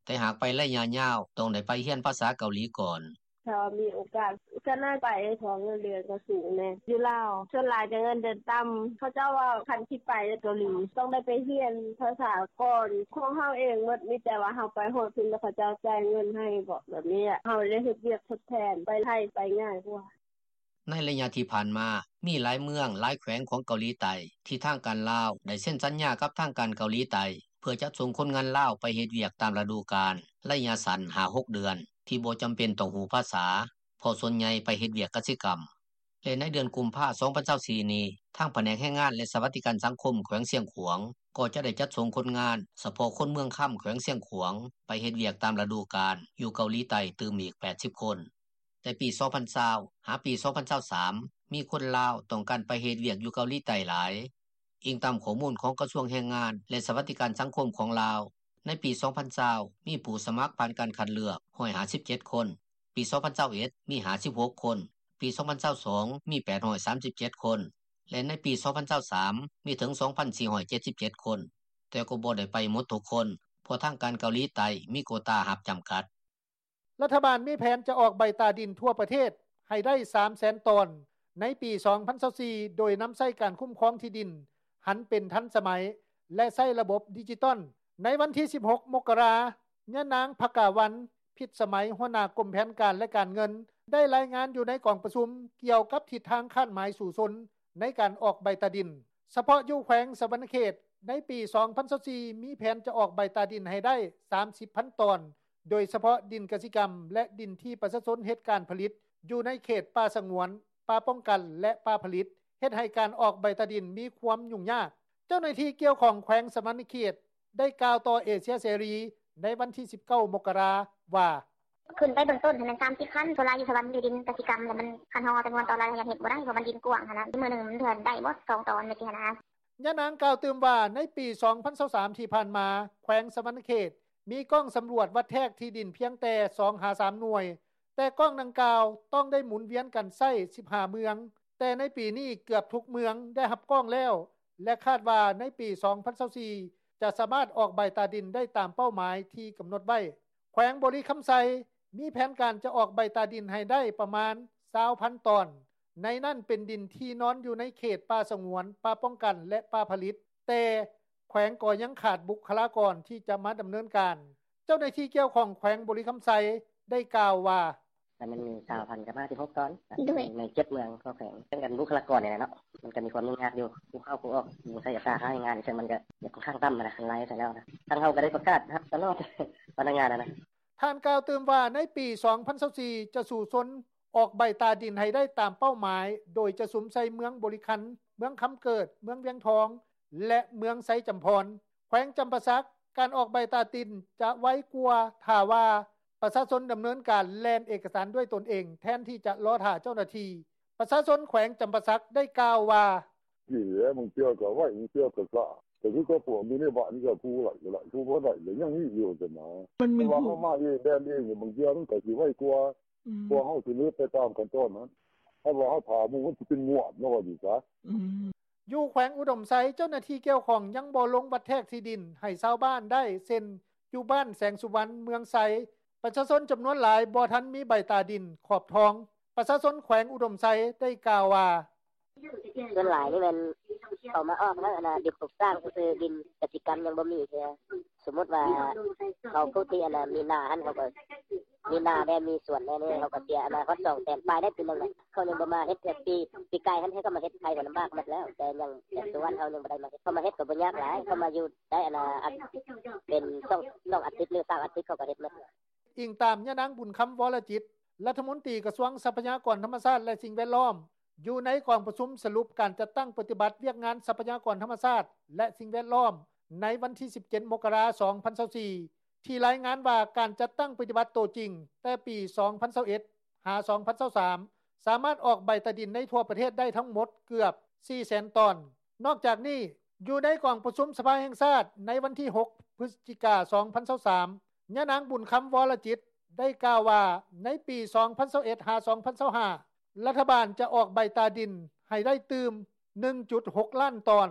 ແຕ່ຫາກໄປໄລຍະຍາວ ຕ້ອງໄດ້ໄປຮຽນພາສາເກົາຫຼີກ່ອນ. ຖ້າວ່າມີໂອກາດ ກະໜ້າໄປ ເພາະເງິນເດືອນກະສູງແນ່ຢູ່ລາວ. ສ່ວນຫຼາຍກະເງິນເດືອນຕ່ຳ. ເຂົາເຈົ້າວ່າຄັນຊິໄປເກົາຫຼີ ຕ້ອງໄດ້ໄປຮຽນພາສາກ່ອນ. ຂອງເຮົາເອງໝົດ ມີແຕ່ວ່າເຮົາໄປຮອດພຸ້ນແລ້ວ ເຂົາເຈົ້າຈ່າຍເງິນໃຫ້ເບາະ ແບບນີ້ແຫຼະ. ເຮົາໄດ້ເຮັດວຽກທົດແທນ ໄປໄທໄປງ່າຍກວ່າ. ໃນໄລຍະທີ່ຜ່ານມາ, ມີຫຼາຍເມືອງ, ຫຼາຍແຂວງຂອງເກົາຫຼີໃຕ້ ທີ່ທາງການລາວໄດ້ເຊັນສັນຍາກັບທາງການເກົາຫຼີໃຕ້ ເພື່ອຈັດສົ່ງຄົນງານລາວໄປເຮັດວຽກຕາມລະດູການ ໄລຍະສັ້ນ ຫ້າຫົກເດືອນ ທີ່ບໍ່ຈຳເປັນຕ້ອງຮູ້ພາສາ ເພາະສ່ວນໃຫຍ່ໄປເຮັດວຽກກະສິກຳ. ແລະໃນເດືອນກຸມພາ ສອງພັນຊາວສີ່ນີ້, ທາງພະແນກແຮງງານ ແລະສະຫວັດດີການສັງຄົມແຂວງຊຽງຂວາງ ກໍຈະໄດ້ຈັດສົ່ງຄົນງານ ສະເພາະຄົນເມືອງຄຳ ແຂວງຊຽງຂວາງ ໄປເຮັດວຽກຕາມລະດູການ ຢູ່ເກົາຫຼີໃຕ້ຕື່ມອີກ ແປດສິບຄົນ. ແຕ່ປີສອງພັນຊາວ ຫາປີສອງພັນຊາວສາມ ມີຄົນລາວຕ້ອງການໄປເຮັດວຽກຢູ່ເກົາຫຼີໃຕ້ຫຼາຍ. ອີງຕາມຂໍ້ມູນຂອງກະຊວງແຮງງານ ແລະສະຫວັດດີການສັງຄົມຂອງລາວ, ໃນປີສອງພັນຊາວ ມີຜູ້ສະໝັກຜ່ານການຄັດເລືອກ ຮ້ອຍຫ້າສິບເຈັດຄົນ, ປີສອງພັນຊາວເອັດ ມີຫ້າສິບຫົກຄົນ, ປີສອງພັນຊາວສອງ ມີແປດຮ້ອຍສາມສິບເຈັດຄົນ ແລະໃນປີສອງພັນຊາວສາມ ມີເຖິງ ສອງພັນສີ່ຮ້ອຍເຈັດສິບເຈັດຄົນ, ແຕ່ກໍບໍ່ໄດ້ໄປໝົດທຸກຄົນ ເພາະທາງການເກົາຫຼີໃຕ້ມີໂກຕາຮັບຈຳກັດ. ລັດຖະບານມີແຜນຈະອອກໃບຕາດິນທົ່ວປະເທດໃຫ້ໄດ້ ສາມແສນຕອນ ໃນປີສອງພັນຊາວສີ່ ໂດຍນຳໃຊ້ການຄຸ້ມຄອງທີ່ດິນຫັນເປັນທັນສະໄໝ ແລະໃຊ້ລະບົບດິຈິຕອນ. ໃນວັນທີສິບຫົກ ມົກກະລາ, ຍານາງ ພະກາວັນ ພິດສະໄໝ ຫົວໜ້າກົມແຜນການ ແລະການເງິນ ໄດ້ລາຍງານຢູ່ໃນກອງປະຊຸມກ່ຽວກັບທິດທາງຄາດໝາຍສູ້ຊົນໃນການອອກໃບຕາດິນ. ສະເພາະຢູ່ແຂວງສະຫວັນນະເຂດ, ໃນປີສອງພັນຊາວສີ່ ມີແຜນຈະອອກໃບຕາດິນໃຫ້ໄດ້ ສາມສິບພັນຕອນ ໂດຍສະເພາະດິນກະສິກຳ ແລະ ດິນທີ່ປະຊາຊົນເຮັດການຜະລິດ ຢູ່ໃນເຂດປ່າສະຫງວນ, ປ່າປ້ອງກັນ ແລະ ປ່າຜະລິດ, ເຮັດໃຫ້ການອອກໃບຕາດິນມີຄວາມຫຍຸ້ງຍາກ. ເຈົ້າໜ້າທີ່ກ່ຽວຂ້ອງແຂວງສະຫວັນນະເຂດ ໄດ້ກ່າວຕໍ່ເອເຊຍເສລີ ໃນວັນທີສິບເກົ້າ ມົກກະລາ ວ່າ: ຂຶ້ນໄປເບື້ອງຕົ້ນຫັ້ນແມ່ນ ສາມສິບພັນ. ສ່ວນຫຼາຍຢູ່ສະຫວັນ ຢູ່ດິນກະສິກຳ ແລ້ວມັນ ຄັນເຮົາເອົາຈຳນວນຕອນລາຍ ເຮົາຢາກເຮັດບໍ່ໄດ້ ເພາະມັນດິນກວ້າງຫັ້ນນະ. ມື້ໜຶ່ງມັນເທື່ອໄດ້ບໍ່ ສອງຕອນ ແມ່ນຊິຫັ້ນນະ. ຍານາງກ່າວຕື່ມວ່າ ໃນປີສອງພັນຊາວສາມທີ່ຜ່ານມາ, ແຂວງສະຫວັນນະເຂດ ມີກ້ອງສຳຫຼວດວັດແທກທີ່ດິນພຽງແຕ່ສອງຫາສາມໜ່ວຍ, ແຕ່ກ້ອງດັ່ງກ່າວຕ້ອງໄດ້ໝູນວຽນກັນໃຊ້ສິບຫ້າເມືອງ, ແຕ່ໃນປີນີ້ເກືອບທຸກເມືອງໄດ້ຮັບກ້ອງແລ້ວ ແລະ ຄາດວ່າໃນປີສອງພັນຊາວສີ່ ຈະສາມາດອອກໃບຕາດິນໄດ້ຕາມເປົ້າໝາຍທີ່ກຳນົດໄວ້. ແຂວງບໍລິຄຳໄຊ ມີແຜນການຈະອອກໃບຕາດິນໃຫ້ໄດ້ປະມານ ຊາວພັນຕອນ, ໃນນັ້ນເປັນດິນທີ່ນອນຢູ່ໃນເຂດປ່າສະຫງວນ, ປ່າປ້ອງກັນ ແລະ ປ່າຜະລິດ, ແຕ່ແຂວງກໍຍັງຂາດບຸກຄະລາກອນທີ່ຈະມາດຳເນີນການ. ເຈົ້າໜ້າທີ່ກ່ຽວຂ້ອງແຂວງບໍລິຄຳໄຊ ໄດ້ກ່າວວ່າ: ແລ້ວມັນມີຊາວພັນກັບຫ້າສິບຫົກຕອນ ໂດຍ ໃນເຈັດເມືອງຂອງແຂວງ ເລື່ອງການບຸກຄະລາກອນນີ້ແຫຼະເນາະ ມັນກໍມີຄວາມຫຍຸ້ງຍາກຢູ່ ຜູ້ເຂົ້າຜູ້ອອກ ຜູ້ໃຊ້ສາຂາແຮງງານ ເຊິ່ງມັນກໍຂ້ອນຂ້າງຕ່ຳນະ ຄັນໄລ່ໃສ່ແລ້ວນະ. ທາງເຮົາກໍໄດ້ປະກາດຮັບຕະຫຼອດ ພະນັກງານນະ. ທ່ານກ່າວຕື່ມວ່າ ໃນປີສອງພັນຊາວສີ່ ຈະສູ້ຊົນອອກໃບຕາດິນໃຫ້ໄດ້ຕາມເປົ້າໝາຍ ໂດຍຈະສຸມໃສ່ເມືອງບໍລິຄັນ, ເມືອງຄຳເກີດ, ເມືອງວຽງທອງ ແລະ ເມືອງໄຊຈຳພອນ. ແຂວງຈຳປາສັກ, ການອອກໃບຕາດິນຈະໄວກວ່າ ຖ້າວ່າປະຊາຊົນດຳເນີນການແລ່ນເອກະສານດ້ວຍຕົນເອງ ແທນທີ່ຈະລໍຖ້າເຈົ້າໜ້າທີ່. ປະຊາຊົນແຂວງຈຳປາສັກໄດ້ກ່າວວ່າ: ດີແຫຼະ ບາງເທື່ອກໍໄວ ບາງເທື່ອກໍຊ້າ ກໍຄືກັບພວກຢູ່ໃນບ້ານນີ້ ກໍຜູ້ໄດ້ກໍໄດ້ ຜູ້ບໍ່ໄດ້ກໍຍັງມີຢູ່ຊັ້ນນະ. ມັນມີ ແຕ່ວ່າເຮົາມາເອງ ແລ່ນເອງ ບາງເທື່ອມັນກໍຊິໄວກວ່າ ອືມ ເພາະເຮົາສະເໜີໄປຕາມຂັ້ນຕອນນັ້ນ ຖ້າວ່າເຮົາຖ້າໝູ່ ມັນຊິເປັນງວດເນາະ ວ່າຊີ້ຊະ. ອືມ ຢູ່ແຂວງອຸດົມໄຊ, ເຈົ້າໜ້າທີ່ກ່ຽວຂ້ອງຍັງບໍ່ລົງວັດແທກທີ່ດິນໃຫ້ຊາວບ້ານໄດ້ ເຊັ່ນ ຢູ່ບ້ານແສງສຸວັນ ເມືອງໄຊ, ປະຊາຊົນຈຳນວນຫຼາຍບໍ່ທັນມີໃບຕາດິນຂອບທອງ. ປະຊາຊົນແຂວງອຸດົມໄຊໄດ້ກ່າວວ່າ: ສ່ວນຫຼາຍນີ້ແມ່ນເຂົາມາອອກແລ້ວ ອັນນ່າ ດິນປຸກສ້າງຊື່ໆ ດິນກະສິກຳຍັງບໍ່ມີເທື່ອ. ສົມມຸດວ່າເຂົາຜູ້ທີ່ ອັນນ່າ ມີນາຫັ້ນ ເຂົາກໍມີນາແດ່ ມີສວນແດ່ນີ້ ເຂົາກໍເສຍ ອັນນ່າ ຮອດສອງແສນປາຍໄດ້ປີໜຶ່ງນະ. ເຂົາຍັງບໍ່ມາເຮັດເທື່ອ ປີ ປີກາຍຫັ້ນ ເຂົາກໍມາເຮັດໄທ ກໍລຳບາກໝົດແລ້ວ ແຕ່ຍັງ ແຕ່ສຸວັນເຮົາຍັງບໍ່ໄດ້ມາເຮັດ. ເຂົາມາເຮັດກໍບໍ່ຍາກຫຼາຍ ເຂົາມາຢູ່ໄດ້ ອັນນ່າ ເປັນສອງ ສອງອາທິດ ຫຼື ສາມອາທິດ ເຂົາກໍເຮັດໝົດ. ອີງຕາມຍານາງ ບຸນຄຳ ວໍລະຈິດ ລັດຖະມົນຕີກະຊວງຊັບພະຍາກອນທຳມະຊາດ ແລະ ສິ່ງແວດລ້ອມ ຢູ່ໃນກອງປະຊຸມສະຫຼຸບການຈັດຕັ້ງປະຕິບັດວຽກງານຊັບພະຍາກອນທຳມະຊາດ ແລະ ສິ່ງແວດລ້ອມ ໃນວັນທີສິບເຈັດ ມົກກະລາ ສອງພັນຊາວສີ່ ທີ່ລາຍງານວ່າ ການຈັດຕັ້ງປະຕິບັດໂຕຈິງແຕ່ປີສອງພັນຊາວເອັດ ຫາ ສອງພັນຊາວສາມ ສາມາດອອກໃບຕາດິນໃນທົ່ວປະເທດໄດ້ທັງໝົດເກືອບ ສີ່ແສນຕອນ. ນອກຈາກນີ້, ຢູ່ໃນກອງປະຊຸມສະພາແຫ່ງຊາດໃນວັນທີຫົກ ພຶສຈິກາ ສອງພັນຊາວສາມ ຍານາງ ບຸນຄຳ ວໍລະຈິດ ໄດ້ກ່າວວ່າ ໃນປີສອງພັນຊາວເອັດ ຫາ ສອງພັນຊາວຫ້າ ລັດຖະບານຈະອອກໃບຕາດິນໃຫ້ໄດ້ຕື່ມ ໜຶ່ງຈຸດຫົກລ້ານຕອນ,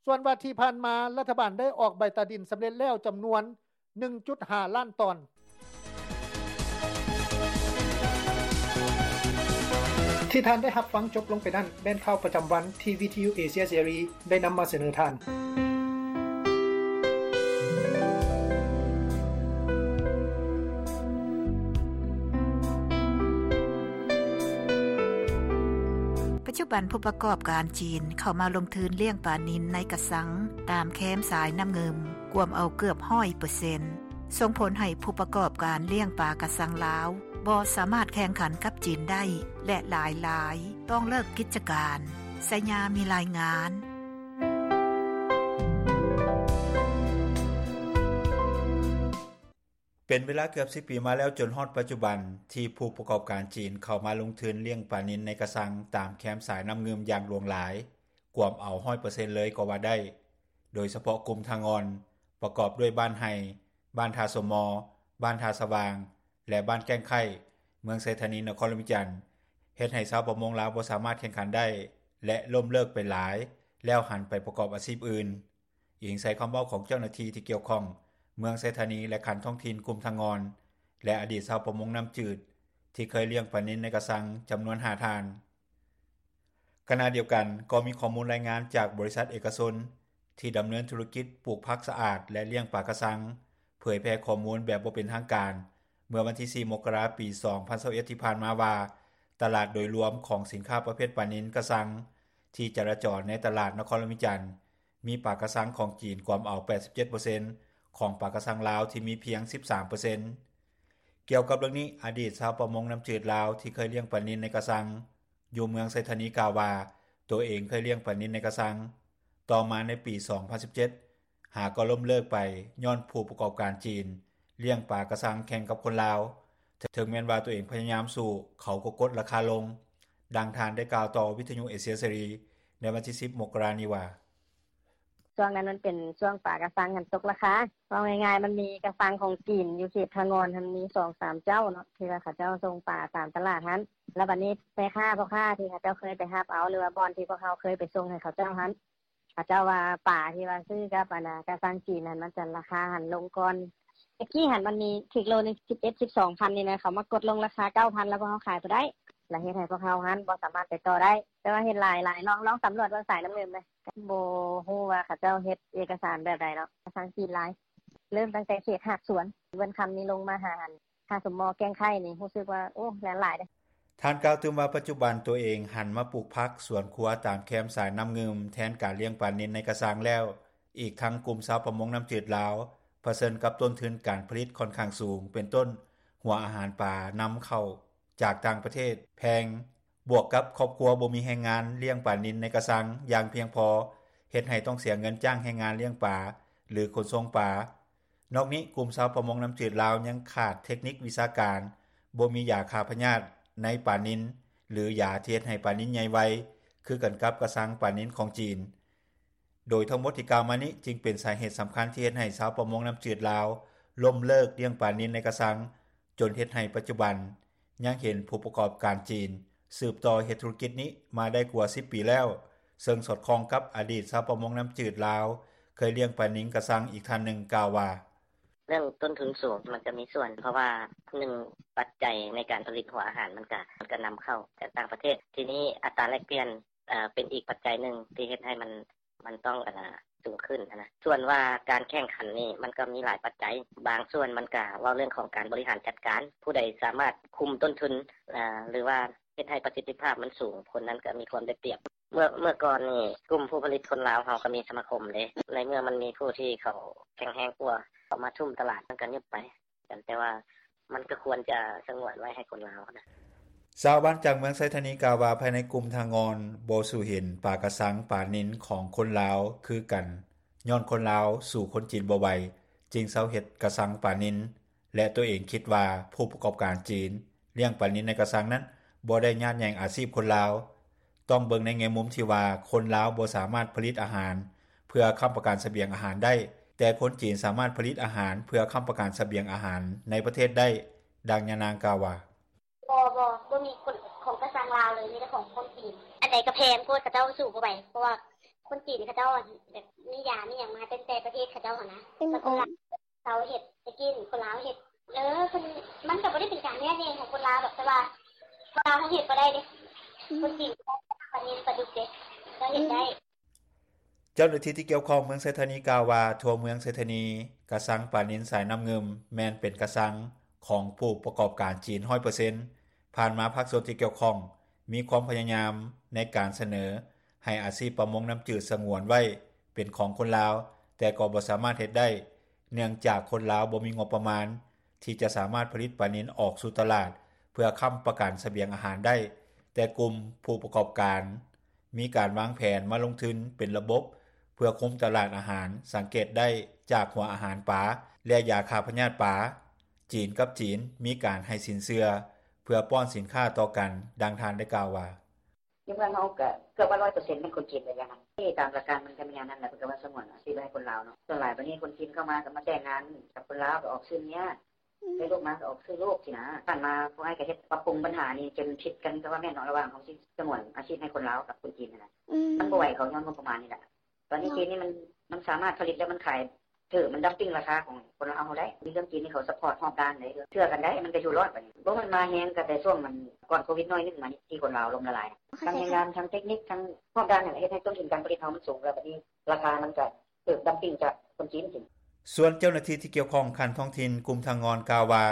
ສ່ວນວ່າທີ່ຜ່ານມາ ລັດຖະບານໄດ້ອອກໃບຕາດິນສຳເລັດແລ້ວຈຳນວນ ໜຶ່ງຈຸດຫ້າລ້ານຕອນ. ທີ່ທ່ານໄດ້ຮັບຟັງຈົບລົງໄປນັ້ນ ແມ່ນຂ່າວປະຈຳວັນທີ່ວິທະຍຸເອເຊຍເສລີໄດ້ນຳມາສະເໜີທ່ານ. ປັດຈຸບັນຜູ້ປະກອບການຈີນເຂົ້າມາລົງທຶນລ້ຽງປານິນໃນກະຊັງຕາມແຄມສາຍນ້ຳງື່ມ ກວມເອົາເກືອບຮ້ອຍເປີເຊັນ ສົ່ງຜົນໃຫ້ຜູ້ປະກອບການລ້ຽງປາກະຊັງລາວ ບໍ່ສາມາດແຂ່ງຂັນກັບຈີນໄດ້ ແລະ ຫຼາຍໆຕ້ອງເລີກກິດຈະການ. ໄຊຍາມີລາຍງານ. ເປັນເວລາເກືອບສິບປີມາແລ້ວ ຈົນຮອດປັດຈຸບັນ ທີ່ຜູ້ປະກອບການຈີນເຂົ້າມາລົງທຶນລ້ຽງປານິນໃນກະຊັງຕາມແຄມສາຍນ້ຳງື່ມຢ່າງຫຼວງຫຼາຍ, ກວມເອົາຮ້ອຍເປີເຊັນເລີຍກໍວ່າໄດ້. ໂດຍສະເພາະກຸ່ມທ່າງ່ອນ ປະກອບດ້ວຍບ້ານໄຮ່, ບ້ານທ່າສົມມໍ, ບ້ານທ່າສະຫວ່າງ ແລະ ບ້ານແກ້ງໄຄ້ ເມືອງໄຊທານີ ນະຄອນຫຼວງວຽງຈັນ ເຮັດໃຫ້ຊາວປະມົງລາວບໍ່ສາມາດແຂ່ງຂັນໄດ້ ແລະ ລົ້ມເລີກໄປຫຼາຍ ແລ້ວຫັນໄປປະກອບອາຊີບອື່ນ. ອີງໃສ່ຄຳເວົ້າຂອງເຈົ້າໜ້າທີ່ທີ່ກ່ຽວຂ້ອງເມືອງໄຊທານີ ແລະ ຂັ້ນທ້ອງຖິ່ນກຸ່ມທ່າງ່ອນ ແລະ ອະດີດຊາວປະມົງນ້ຳຈືດ ທີ່ເຄີຍລ້ຽງປານິນໃນກະຊັງຈຳນວນຫ້າທ່ານ. ຂະນະດຽວກັນ ກໍມີຂໍ້ມູນລາຍງານຈາກບໍລິສັດເອກະຊົນ ທີ່ດຳເນີນທຸລະກິດປູກຜັກສະອາດ ແລະ ລ້ຽງປາກະຊັງ ເຜີຍແຜ່ຂໍ້ມູນແບບບໍ່ເປັນທາງການ ເມື່ອວັນທີສີ່ ມົກກະລາ ປີສອງພັນຊາວເອັດ ທີ່ຜ່ານມາວ່າ ຕະຫຼາດໂດຍລວມຂອງສິນຄ້າປະເພດປານິນກະຊັງ ທີ່ຈະລາຈອນໃນຕະຫຼາດນະຄອນຫຼວງວຽງຈັນ ມີປາກະຊັງຂອງຈີນກວມເອົາແປດສິບເຈັດເປີເຊັນ ຂອງປາກະຊັງລາວທີ່ມີພຽງສິບສາມເປີເຊັນ. ກ່ຽວກັບເລື່ອງນີ້, ອະດີດຊາວປະມົງນ້ຳຈືດລາວທີ່ເຄີຍລ້ຽງປານິນໃນກະຊັງ ຢູ່ເມືອງໄຊທານີກ່າວວ່າ ຕົວເອງເຄີຍລ້ຽງປານິນໃນກະຊັງ. ຕໍ່ມາໃນປີສອງພັນສິບເຈັດ ຫາກໍລົ້ມເລີກໄປ ຍ້ອນຜູ້ປະກອບການຈີນລ້ຽງປາກະຊັງແຂ່ງກັບຄົນລາວ. ເຖິງແມ່ນວ່າຕົວເອງພະຍາຍາມສູ້, ເຂົາກໍກົດລາຄາລົງ. ດັ່ງທ່ານໄດ້ກ່າວຕໍ່ວິທະຍຸເອເຊຍເສລີໃນວັນທີສິບ ມົກກະລານີ້ວ່າ: ຊ່ວງນັ້ນມັນເປັນຊ່ວງປາກະຊັງຫັ້ນຕົກລາຄາ. ເວົ້າງ່າຍໆ ມັນມີກະຊັງຂອງຈີນຢູ່ເຂດທ່າງ່ອນຫັ້ນ ມີສອງສາມເຈົ້າເນາະ ທີ່ວ່າເຂົາເຈົ້າສົ່ງປາຕາມຕະຫຼາດຫັ້ນ. ແລ້ວບັດນີ້ແມ່ຄ້າພໍ່ຄ້າທີ່ເຂົາເຈົ້າເຄີຍໄປຮັບເອົາ ຫຼືວ່າບ່ອນທີ່ພວກເຮົາເຄີຍໄປສົ່ງໃຫ້ເຂົາເຈົ້າຫັ້ນ ເຂົາເຈົ້າວ່າປາທີ່ວ່າຊື້ກັບອັນນາກະຊັງຈີນຫັ້ນ ມັນຈະລາຄາຫັ້ນລົງກ່ອນ. ແຕ່ກີ້ຫັ້ນມັນມີຖືກໂລໜຶ່ງສິບເອັດ ສິບສອງພັນນີ້ນະ ເຂົາມາກົດລົງລາຄາເກົ້າພັນ ແລ້ວພວກເຮົາຂາຍບໍ່ໄດ້ ແລ້ວເຮັດໃຫ້ພວກເຮົາຫັ້ນບໍ່ສາມາດໄປຕໍ່ໄດ້. ແຕ່ວ່າເຫັນຫຼາຍໆ ລອງ ລອງສຳຫຼວດເບິ່ງສາຍນ້ຳງື່ມເລີຍ. ບໍ່ຮູ້ວ່າເຂົາເຈົ້າເຮັດເອກະສານແບບໃດເນາະ ກະຊັງຈີນຫຼາຍ. ເລີ່ມຕັ້ງແຕ່ເຂດຫາດສວນ ເວີນຄຳນີ້ລົງມາຫາ ທ່າສົມມໍ ແກ້ງໄຄ້ນີ້ ຮູ້ສຶກວ່າ ໂອ້ ແລ່ນຫຼາຍເດ້. ທ່ານກ່າວຕື່ມວ່າ ປັດຈຸບັນຕົວເອງຫັນມາປູກຜັກສວນຄົວຕາມແຄມສາຍນ້ຳງື່ມ ແທນການລ້ຽງປານິນໃນກະຊັງແລ້ວ. ອີກທັງກຸ່ມຊາວປະມົງນ້ຳຈືດລາວ ປະເຊີນກັບຕົ້ນທຶນການຜະລິດຂ້ອນຂ້າງສູງ ເປັນຕົ້ນ ຫົວອາຫານປານຳເຂົ້າຈາກຕ່າງປະເທດແພງ. ບວກກັບຄອບຄົວບໍ່ມີແຮງງານລ້ຽງປານິນໃນກະຊັງຢ່າງພຽງພໍ ເຮັດໃຫ້ຕ້ອງເສຍເງິນຈ້າງແຮງງານລ້ຽງປາ ຫຼື ຂົນສົ່ງປາ. ນອກນີ້ ກຸ່ມຊາວປະມົງນ້ຳຈືດລາວຍັງຂາດເທັກນິກວິຊາການ, ບໍ່ມີຢາຂ້າພະຍາດໃນປານິນ ຫຼື ຢາທີ່ເຮັດໃຫ້ປານິນໃຫຍ່ໄວ ຄືກັນກັບກະຊັງປານິນຂອງຈີນ. ໂດຍທັງໝົດທີ່ກ່າວມານີ້ ຈຶ່ງເປັນສາເຫດສຳຄັນທີ່ເຮັດໃຫ້ຊາວປະມົງນ້ຳຈືດລາວລົ້ມເລີກລ້ຽງປານິນໃນກະຊັງ ຈົນເຮັດໃຫ້ປັດຈຸບັນ ຍັງເຫັນຜູ້ປະກອບການຈີນສືບຕໍ່ເຮັດທຸລະກິດນີ້ມາໄດ້ກວ່າສິບປີແລ້ວ, ເຊິ່ງສອດຄ່ອງກັບອະດີດຊາວປະມົງນ້ຳຈືດລາວເຄີຍລ້ຽງປານິນກະຊັງອີກທ່ານໜຶ່ງກ່າວວ່າ: ເລື່ອງຕົ້ນທຶນສູງມັນກະມີສ່ວນ ເພາະວ່າ ໜຶ່ງ ປັດໄຈໃນການຜະລິດຫົວອາຫານມັນກະ ມັນກະນຳເຂົ້າຈາກຕ່າງປະເທດ, ທີນີ້ອັດຕາແລກປ່ຽນ ເປັນອີກປັດໄຈໜຶ່ງທີ່ເຮັດໃຫ້ມັນ ມັນຕ້ອງ ອັນນາ ສູງຂຶ້ນຫັ້ນນະ. ສ່ວນວ່າການແຂ່ງຂັນນີ້ ມັນກໍມີຫຼາຍປັດໄຈ, ບາງສ່ວນມັນກໍເວົ້າເລື່ອງຂອງການບໍລິຫານຈັດການ, ຜູ້ໃດສາມາດຄຸມຕົ້ນທຶນ ຫຼືວ່າເຮັດໃຫ້ປະສິດທິພາບມັນສູງ, ຄົນນັ້ນກໍມີຄວາມໄດ້ປຽບ. ເມື່ອ ເມື່ອກ່ອນນີ້ ກຸ່ມຜູ້ຜະລິດຄົນລາວເຮົາກໍມີສະມາຄົມເດ້, ໃນເມື່ອມັນມີຜູ້ທີ່ເຂົາແຂງແຮງກວ່າ ເຂົາມາທຸ່ມຕະຫຼາດ ມັນກໍຍຸບໄປ. ແຕ່ວ່າມັນກໍຄວນຈະສະຫງວນໄວ້ໃຫ້ຄົນລາວນະ. ຊາວບ້ານຈາກເມືອງໄຊທານີກ່າວວ່າ ພາຍໃນກຸ່ມທ່າງ່ອນບໍ່ສູ້ເຫັນປາກະຊັງປານິນຂອງຄົນລາວຄືກັນ, ຍ້ອນຄົນລາວສູ້ຄົນຈີນບໍ່ໄຫວ ຈຶ່ງເຊົາເຮັດກະຊັງປານິນ ແລະ ຕົວເອງຄິດວ່າຜູ້ປະກອບການຈີນລ້ຽງປານິນໃນກະຊັງນັ້ນ ບໍ່ໄດ້ຍາດແຍ່ງອາຊີບຄົນລາວ. ຕ້ອງເບິ່ງໃນແງ່ມຸມທີ່ວ່າ ຄົນລາວບໍ່ສາມາດຜະລິດອາຫານເພື່ອຄ້ຳປະກັນສະບຽງອາຫານໄດ້, ແຕ່ຄົນຈີນສາມາດຜະລິດອາຫານເພື່ອຄ້ຳປະກັນສະບຽງອາຫານໃນປະເທດໄດ້, ດັ່ງຍານາງກ່າວວ່າ: ບໍ່ ບໍ່ ບໍ່ມີຄົນຂອງກະຊັງລາວເລີຍ, ມີແຕ່ຂອງຄົນຈີນ. ອັນໃດກະແພງໂພດ, ເຂົາເຈົ້າສູ້ບໍ່ໄຫວ, ເພາະວ່າຄົນຈີນເຂົາເຈົ້າແບບມີຢາມີຫຍັງມາແຕ່ປະເທດເຂົາເຈົ້າຫັ້ນນະ. ເຂົາເຮັດ ແຕ່ກີ້ຄົນລາວເຮັດ ເອີ ເພິ່ນ ມັນກໍບໍ່ໄດ້ເປັນການແຍກແຍງຂອງຄົນລາວດອກ, ແຕ່ວ່າຄົນລາວເຮົາເຮັດບໍ່ໄດ້ເດ້. ຄົນຈີນກໍໄດ້ ປານິນ ປາດຸກເດັກ ກໍເຮັດໄດ້. ເຈົ້າໜ້າທີ່ທີ່ກ່ຽວຂ້ອງເມືອງໄຊທານີກ່າວວ່າ ທົ່ວເມືອງໄຊທານີ ກະຊັງປານິນສາຍນ້ຳງື່ມ ແມ່ນເປັນກະຊັງຂອງຜູ້ປະກອບການຈີນ ຮ້ອຍເປີເຊັນ. ຜ່ານມາພາກສ່ວນທີ່ກ່ຽວຂ້ອງ ມີຄວາມພະຍາຍາມໃນການສະເໜີໃຫ້ອາຊີບປະມົງນ້ຳຈືດສະຫງວນໄວ້ເປັນຂອງຄົນລາວ, ແຕ່ກໍບໍ່ສາມາດເຮັດໄດ້ ເນື່ອງຈາກຄົນລາວບໍ່ມີງົບປະມານ ທີ່ຈະສາມາດຜະລິດປານິນອອກສູ່ຕະຫຼາດ ເພື່ອຄ້ຳປະກັນສະບຽງອາຫານໄດ້, ແຕ່ກຸ່ມຜູ້ປະກອບການ ມີການວາງແຜນມາລົງທຶນເປັນລະບົບ ເພື່ອຄຸມຕະຫຼາດອາຫານ, ສັງເກດໄດ້ຈາກຫົວອາຫານປາ ແລະ ຢາຂ້າພະຍາດປາ. ຈີນກັບຈີນ ມີການໃຫ້ສິນເຊື່ອ ເພື່ອປ້ອນສິນຄ້າຕໍ່ກັນ, ດັ່ງທ່ານໄດ້ກ່າວວ່າ: ຢູ່ເມືອງເຮົາກໍເກືອບວ່າ ຮ້ອຍເປີເຊັນ ແມ່ນຄົນຈີນເບິດແລ້ວນະ. ຕາມຫຼັກການມັນກໍແມ່ນແນວນັ້ນແຫຼະ, ເພິ່ນກໍວ່າສະຫງວນອາຊີບໄວ້ໃຫ້ຄົນລາວເນາະ. ສ່ວນຫຼາຍບາດນີ້ຄົນຈີນເຂົ້າມາກໍມາແຕ່ງງານກັບຄົນລາວ, ກໍອອກຊື່ເມຍ, ໄດ້ລູກມາກໍອອກຊື່ລູກຊີ້ນະ. ຜ່ານມາພວກອ້າຍກໍເຮັດປັບປຸງບັນຫານີ້ ຈົນຜິດກັນກໍວ່າແມ່ນເນາະ ລະຫວ່າງເຮົາຊິສະຫງວນອາຊີບໃຫ້ຄົນລາວກັບຄົນຈີນຫັ້ນນະ. ມັນບໍ່ໄຫວເຂົາຍ້ອນງົບປະມານນີ້ແຫຼະ. ຕອນນີ້ຈີນນີ້ມັນ ມັນສາມາດຜະລິດແລ້ວມັນຂາຍຖືກ, ມັນດັມປິງລາຄາຂອງຄົນລາວເຮົາໄດ້. ມີເລື່ອງຈີນນີ້ເຂົາຊັບພອດຮອບດ້ານເດ້, ເຊື່ອກັນໄດ້, ມັນກໍຢູ່ລອດບາດນີ້. ບໍ່ ມັນມາແຮງກໍແຕ່ຊ່ວງມັນກ່ອນໂຄວິດໜ້ອຍໜຶ່ງມານີ້ ທີ່ຄົນລາວລົ້ມລະລາຍ. ທັງແຮງງານ, ທັງເຕັກນິກ, ທັງຮອບດ້ານນັ້ນແຫຼະ ເຮັດໃຫ້ຕົ້ນທຶນການຜະລິດເຮົາມັນສູງ, ແລ້ວບາດນີ້ລາຄາມັນກໍຖືກດັມປິງຈາກຄົນຈີນ. ສ່ວນເຈົ້າໜ້າທີ່ທີ່ກ່ຽວຂ້ອງຂັ້ນທ້ອງຖິ່ນ ກຸ່ມທາງງອນ ກ່າວວ່າ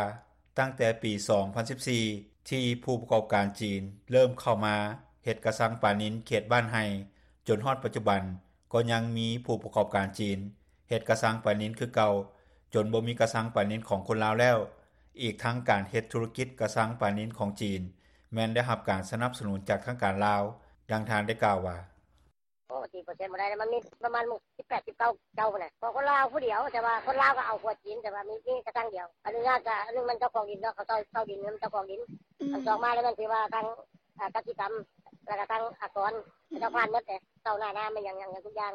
ຕັ້ງແຕ່ປີສອງພັນສິບສີ່ ທີ່ຜູ້ປະກອບການຈີນເລີ່ມເຂົ້າມາເຮັດກະຊັງປານິນເຂດບ້ານໄຮ່ ຈົນຮອດປັດຈຸບັນ ກໍຍັງມີຜູ້ປະກອບການຈີນເຮັດກະຊັງປານິນຄືເກົ່າ, ຈົນບໍ່ມີກະຊັງປານິນຂອງຄົນລາວແລ້ວ. ອີກທັງການເຮັດທຸລະກິດກະຊັງປານິນຂອງຈີນ ແມ່ນໄດ້ຮັບການສະໜັບສະໜູນຈາກທາງການລາວ, ດັ່ງທ່ານໄດ້ກ່າວວ່າ: ໂອ້ ສີ່ເປີເຊັນບໍ່ໄດ້, ມັນມີປະມານສິບແປດ ສິບເກົ້າເຈົ້າພຸ້ນນະ. ຂອງຄົນລາວຜູ້ດຽວ, ແຕ່ວ່າຄົນລາວກໍເອົາຄົວຈີນ, ແຕ່ວ່າມີ ມີກະຊັງດຽວ. ອະນຸຍາດ ກະ ອັນໜຶ່ງມັນເຈົ້າຂອງດິນເນາະ, ເຂົາເຊົ່າ ເຊົ່າດິນ, ມັນເຈົ້າຂອງດິນ. ອັນສອງມາແລ້ວ ມັນຖືວ່າທາງ ອາ ກະສິກຳ ແລ້ວກໍທາງອາກອນ ເຂົາເຈົ້າຜ່ານໝົດເດ້, ເຊົ່າໜ້ານາ ແມ່ນຫຍັງ ຫຍັງ ຫຍັງທຸກຢ່າງ.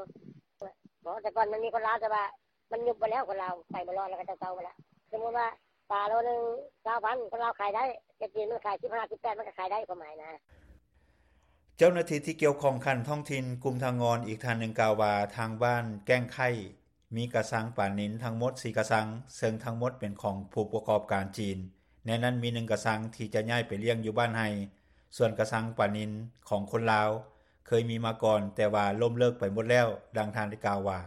ບໍ່ ແຕ່ກ່ອນມັນມີຄົນລາວ, ແຕ່ວ່າມັນຍຸບໝົດແລ້ວ, ຄົນລາວໄປບໍ່ລອດ ແລ້ວກໍເຈົ້າໆໝົດລະ. ສົມມຸດວ່າປາໂລໜຶ່ງຊາວພັນ ຄົນລາວຂາຍໄດ້, ແຕ່ຈີນມັນຂາຍສິບຫ້າ ສິບແປດ ມັນກໍຂາຍໄດ້, ຄວາມໝາຍນະ. ເຈົ້າໜ້າທີ່ທີ່ກ່ຽວຂ້ອງຂັ້ນທ້ອງຖິ່ນ ກຸ່ມທາງງອນ ອີກທ່ານໜຶ່ງກ່າວວ່າ ທາງບ້ານແກ້ງໄຄ້ ມີກະຊັງປານິນທັງໝົດສີ່ກະຊັງ, ເຊິ່ງທັງໝົດເປັນຂອງຜູ້ປະກອບການຈີນ, ໃນນັ້ນມີໜຶ່ງກະຊັງທີ່ຈະຍ້າຍໄປລ້ຽງຢູ່ບ້ານໄຮ່, ສ່ວນກະຊັງປານິນຂອງຄົນລາວເຄີຍມີມາກ່ອນ, ແຕ່ວ່າລົ້ມເລີກໄປໝົດແລ້ວ, ດັ່ງທ່ານໄດ້ກ່າວວ່າ: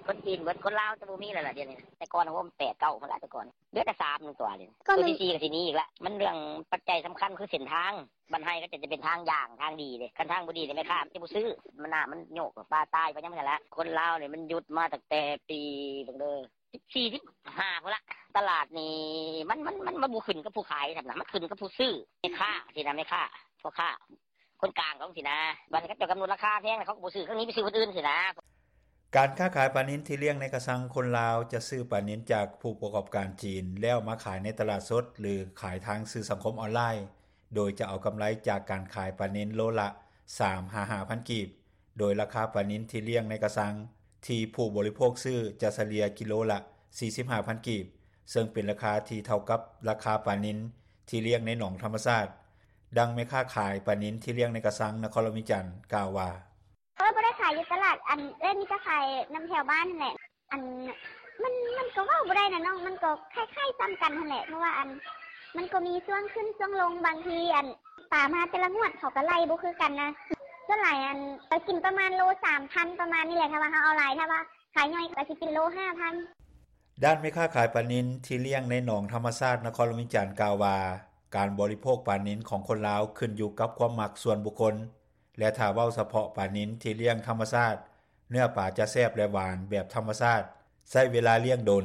ຄົນຈີນເບິດ, ຄົນລາວຈະບໍ່ມີແລ້ວລະດຽວນີ້. ແຕ່ກ່ອນໂຮມແປດເກົ້າພຸ້ນລະ, ແຕ່ກ່ອນເຫຼືອແຕ່ສາມໜຶ່ງຕົວ. ຕົວທີສີ່ກໍຊິມີອີກລະ. ມັນເລື່ອງປັດໄຈສຳຄັນຄືເສັ້ນທາງ. ບ້ານໄຮ່ກໍຈະເປັນທາງຢ່າງ, ທາງດີເດ້. ຄັນທາງບໍ່ດີນີ້ ແມ່ຄ້າມັນຈະບໍ່ຊື້, ມັນນ້ຳມັນໂຍກ, ປາຕາຍໄປຫຍັງຊັ້ນລະ. ຄົນລາວນີ້ມັນຢຸດມາຕັ້ງແຕ່ປີ ເບິ່ງເດີ ສິບສີ່ ສິບຫ້າພຸ້ນລະ. ຕະຫຼາດນີ້ ມັນ ມັນ ມັນ ມັນບໍ່ຂຶ້ນກັບຜູ້ຂາຍຊ້ຳນະ, ມັນຂຶ້ນກັບຜູ້ຊື້, ແມ່ຄ້າຊີ້ນະ, ແມ່ຄ້າ, ພໍ່ຄ້າ. ຄົນກາງເຂົາຊີ້ນະ, ບາດນີ້ເຂົາເຈົ້າກຳນົດລາຄາແພງ ເຂົາກໍບໍ່ຊື້, ເຂົາໜີໄປຊື້ຄົນອື່ນຊີ້ນະ. ການຄ້າຂາຍປານິນທີ່ລ້ຽງໃນກະຊັງ, ຄົນລາວຈະຊື້ປານິນຈາກຜູ້ປະກອບການຈີນ ແລ້ວມາຂາຍໃນຕະຫຼາດສົດ ຫຼື ຂາຍທາງສື່ສັງຄົມອອນລາຍ, ໂດຍຈະເອົາກຳໄລຈາກການຂາຍປານິນໂລລະສາມຫາຫ້າພັນກີບ, ໂດຍລາຄາປານິນທີ່ລ້ຽງໃນກະຊັງ ທີ່ຜູ້ບໍລິໂພກຊື້ຈະສະເລ່ຍກິໂລລະສີ່ສິບຫ້າພັນກີບ, ເຊິ່ງເປັນລາຄາທີ່ເທົ່າກັບລາຄາປານິນທີ່ລ້ຽງໃນໜອງທຳມະຊາດ. ດັ່ງແມ່ຄ້າຂາຍປານິນທີ່ລ້ຽງໃນກະຊັງນະຄອນຫຼວງວຽງຈັນກ່າວວ່າ: ເອີ ບໍ່ໄດ້ຂາຍຢູ່ຕະຫຼາດ, ອັນ ເອື້ອຍມີແຕ່ຂາຍນຳແຖວບ້ານຫັ້ນແຫຼະ. ອັນ ມັນ ມັນກໍເວົ້າບໍ່ໄດ້ນະນ້ອງ, ມັນກໍຄ້າຍໆຊ້ຳກັນຫັ້ນແຫຼະ, ເພາະວ່າ ອັນ ມັນກໍມີຊ່ວງຂຶ້ນຊ່ວງລົງ, ບາງທີ ອັນ ປາມາແຕ່ລະງວດເຂົາກໍໄລ່ບໍ່ຄືກັນນະ. ສ່ວນຫຼາຍ ອັນ ກໍກິນປະມານໂລສາມພັນ ປະມານນີ້ແຫຼະ, ຖ້າວ່າເຮົາເອົາຫຼາຍ, ຖ້າວ່າຂາຍໜ້ອຍກໍຊິກິນໂລຫ້າພັນ. ດ້ານແມ່ຄ້າຂາຍປານິນທີ່ລ້ຽງໃນໜອງທຳມະຊາດນະຄອນຫຼວງວຽງຈັນກ່າວວ່າ ການບໍລິໂພກປານິນຂອງຄົນລາວຂຶ້ນຢູ່ກັບຄວາມມັກສ່ວນບຸກຄົນ ແລະ ຖ້າເວົ້າສະເພາະປານິນທີ່ລ້ຽງທຳມະຊາດ, ເນື້ອປາຈະແຊບ ແລະ ຫວານແບບທຳມະຊາດ, ໃຊ້ເວລາລ້ຽງດົນ.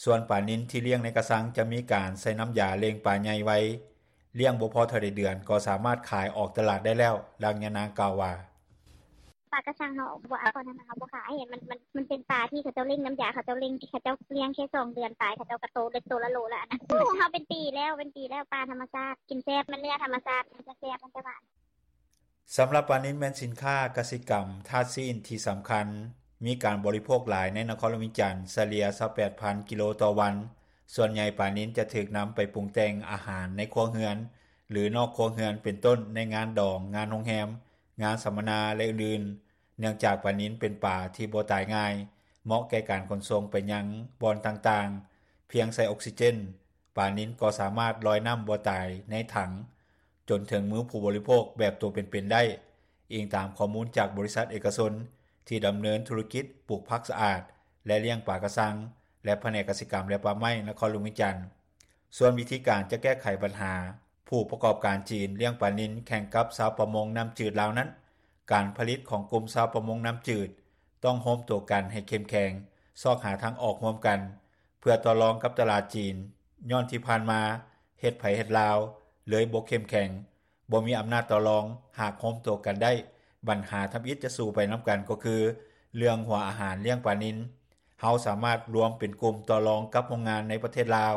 ສ່ວນປານິນທີ່ລ້ຽງໃນກະຊັງຈະມີການໃສ່ນ້ຳຢາເລັ່ງປາໃຫຍ່ໄວ, ລ້ຽງບໍ່ພໍເທົ່າໃດເດືອນກໍສາມາດຂາຍອອກຕະຫຼາດໄດ້ແລ້ວ, ດັ່ງຍານາງກ່າວວ່າ: ປາກະຊັງເຮົາບໍ່ເອົາ, ເຮົາບໍ່ຂາຍ, ມັນ ມັນ ມັນເປັນປາທີ່ເຂົາເຈົ້າເລັ່ງນ້ຳຢາ, ເຂົາເຈົ້າເລັ່ງ, ເຂົາເຈົ້າລ້ຽງແຄ່ສອງເດືອນປາຍ ເຂົາເຈົ້າກະໂຕເລັກໂຕລະໂລລະ. ອັນນັ້ນ ຂອງເຮົາເປັນປີແລ້ວ, ເປັນປີແລ້ວ. ປາທຳມະຊາດ ກິນແຊບ, ມັນເນື້ອທຳມະຊາດ, ມັນຈະແຊບ, ມັນຈະຫວານ. ສຳລັບປານິນແມ່ນສິນຄ້າກະສິກຳທາດຊີ້ນທີ່ສຳຄັນ, ມີການບໍລິໂພກຫຼາຍໃນນະຄອນຫຼວງວຽງຈັນ, ສະເລ່ຍຊາວແປດພັນກິໂລຕໍ່ວັນ. ສ່ວນໃຫຍ່ປານິນຈະຖືກນຳໄປປຸງແຕ່ງອາຫານໃນຄົວເຮືອນ ຫຼື ນອກຄົວເຮືອນ, ເປັນຕົ້ນ ໃນງານດອງ, ງານໂຮງແຮມ, ງານສຳມະນາ ແລະ ອື່ນໆ. ເນື່ອງຈາກປານິນເປັນປາທີ່ບໍ່ຕາຍງ່າຍ, ເໝາະແກ່ການຂົນສົ່ງໄປຍັງບ່ອນຕ່າງໆ, ພຽງໃສ່ອົກຊີເຈນ, ປານິນກໍສາມາດລອຍນ້ຳບໍ່ຕາຍໃນຖັງ. ຈົນເຖິງມືຜູ້ບໍລິໂພກແບບໂຕເປັນໆໄດ້, ອີງຕາມຂໍ້ມູນຈາກບໍລິສັດເອກະຊົນ ທີ່ດຳເນີນທຸລະກິດປູກຜັກສະອາດ ແລະລ້ຽງປາກະຊັງ ແລະພະແນກກະສິກຳ ແລະປ່າໄມ້ ນະຄອນຫຼວງວຽງຈັນ. ສ່ວນວິທີການຈະແກ້ໄຂບັນຫາ ຜູ້ປະກອບການຈີນລ້ຽງປານິນແຂ່ງກັບຊາວປະມົງນ້ຳຈືດລາວນັ້ນ, ການຜະລິດຂອງກຸ່ມຊາວປະມົງນ້ຳຈືດ ຕ້ອງໂຮມໂຕກັນໃຫ້ເຂັ້ມແຂງ, ຊອກຫາທາງອອກຮ່ວມກັນ ເພື່ອຕໍ່ລອງກັບຕະຫຼາດຈີນ, ຍ້ອນທີ່ຜ່ານມາເຮັດໃຜເຮັດລາວ ເລີຍບໍ່ເຂັ້ມແຂງ, ບໍ່ມີອຳນາດຕໍ່ລອງ. ຫາກໂຮມໂຕກັນໄດ້, ບັນຫາທຳອິດຈະສູ້ໄປນຳກັນ ກໍຄືເລື່ອງຫົວອາຫານລ້ຽງປານິນ. ເຮົາສາມາດລວມເປັນກຸ່ມຕໍ່ລອງກັບໂຮງງານໃນປະເທດລາວ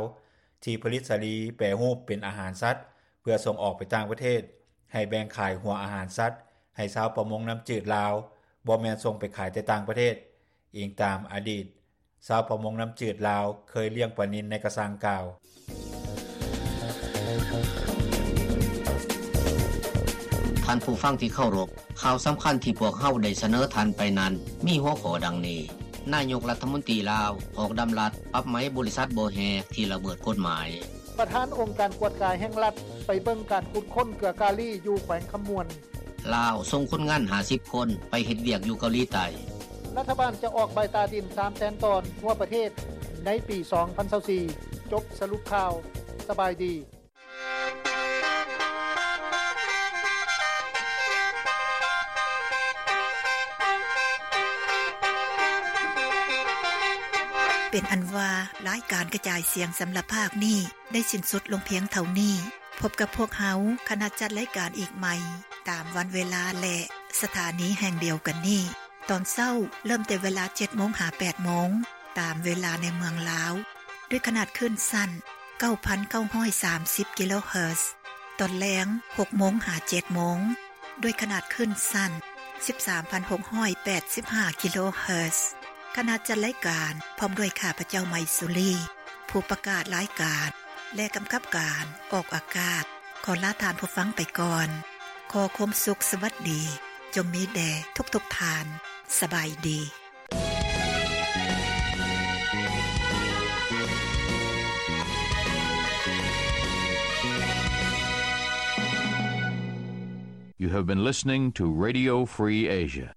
ທີ່ຜະລິດສາລີແປຮູບເປັນອາຫານສັດ ເພື່ອສົ່ງອອກໄປຕ່າງປະເທດ, ໃຫ້ແບ່ງຂາຍຫົວອາຫານສັດໃຫ້ຊາວປະມົງນ້ຳຈືດລາວ, ບໍ່ແມ່ນສົ່ງໄປຂາຍແຕ່ຕ່າງປະເທດ, ອີງຕາມອະດີດຊາວປະມົງນ້ຳຈືດລາວເຄີຍລ້ຽງປານິນໃນກະຊັງກ່າວ. ທ່ານຜູ້ຟັງທີ່ເຄົາລົບ, ຂ່າວສຳຄັນທີ່ພວກເຮົາໄດ້ສະເໜີທ່ານໄປນັ້ນ ມີຫົວຂໍ້ດັ່ງນີ້: ນາຍົກລັດຖະມົນຕີລາວອອກດຳລັດປັບໃໝບໍລິສັດບໍ່ແຮ່ທີ່ລະເມີດກົດໝາຍ. ປະທານອົງການກວດກາແຫ່ງລັດໄປເບິ່ງການຂຸດຄົ້ນເກືອກາລີຢູ່ແຂວງຄຳມ່ວນ. ລາວສົ່ງຄົນງານຫ້າສິບຄົນໄປເຮັດວຽກຢູ່ເກົາຫຼີໃຕ້. ລັດຖະບານຈະອອກໃບຕາດິນສາມແສນຕອນທົ່ວປະເທດໃນປີສອງພັນຊາວສີ່. ຈົບສະຫຼຸບຂ່າວ. ສະບາຍດີ. ເປັນອັນວ່າ ລາຍການກະຈາຍສຽງສຳລັບພາກນີ້ ໄດ້ສິ້ນສຸດລົງພຽງເທົ່ານີ້. ພົບກັບພວກເຮົາ ຄະນະຈັດລາຍການອີກໃໝ່ ຕາມວັນເວລາ ແລະ ສະຖານີແຫ່ງດຽວກັນນີ້. ຕອນເຊົ້າເລີ່ມແຕ່ເວລາເຈັດໂມງຫາແປດໂມງ ຕາມເວລາໃນເມືອງລາວ ດ້ວຍຂະໜາດຄື້ນສັ້ນເກົ້າພັນເກົ້າຮ້ອຍສາມສິບກິໂລເຮີດ, ຕອນແລງຫົກໂມງຫາເຈັດໂມງ ດ້ວຍຂະໜາດຄື້ນສັ້ນສິບສາມພັນຫົກຮ້ອຍແປດສິບຫ້າກິໂລເຮີດ. ຄະນະຈັດລາຍການ ພ້ອມດ້ວຍຂ້າພະເຈົ້າ ໄມສຸລີ ຜູ້ປະກາດລາຍການ ແລະ ກຳກັບການອອກອາກາດ ຂໍລາທ່ານຜູ້ຟັງໄປກ່ອນ. ຂໍຄວາມສຸກສະຫວັດດີ ຈົ່ງມີແດ່ທຸກໆທ່ານ. ສະບາຍດີ. You have been listening to Radio Free Asia.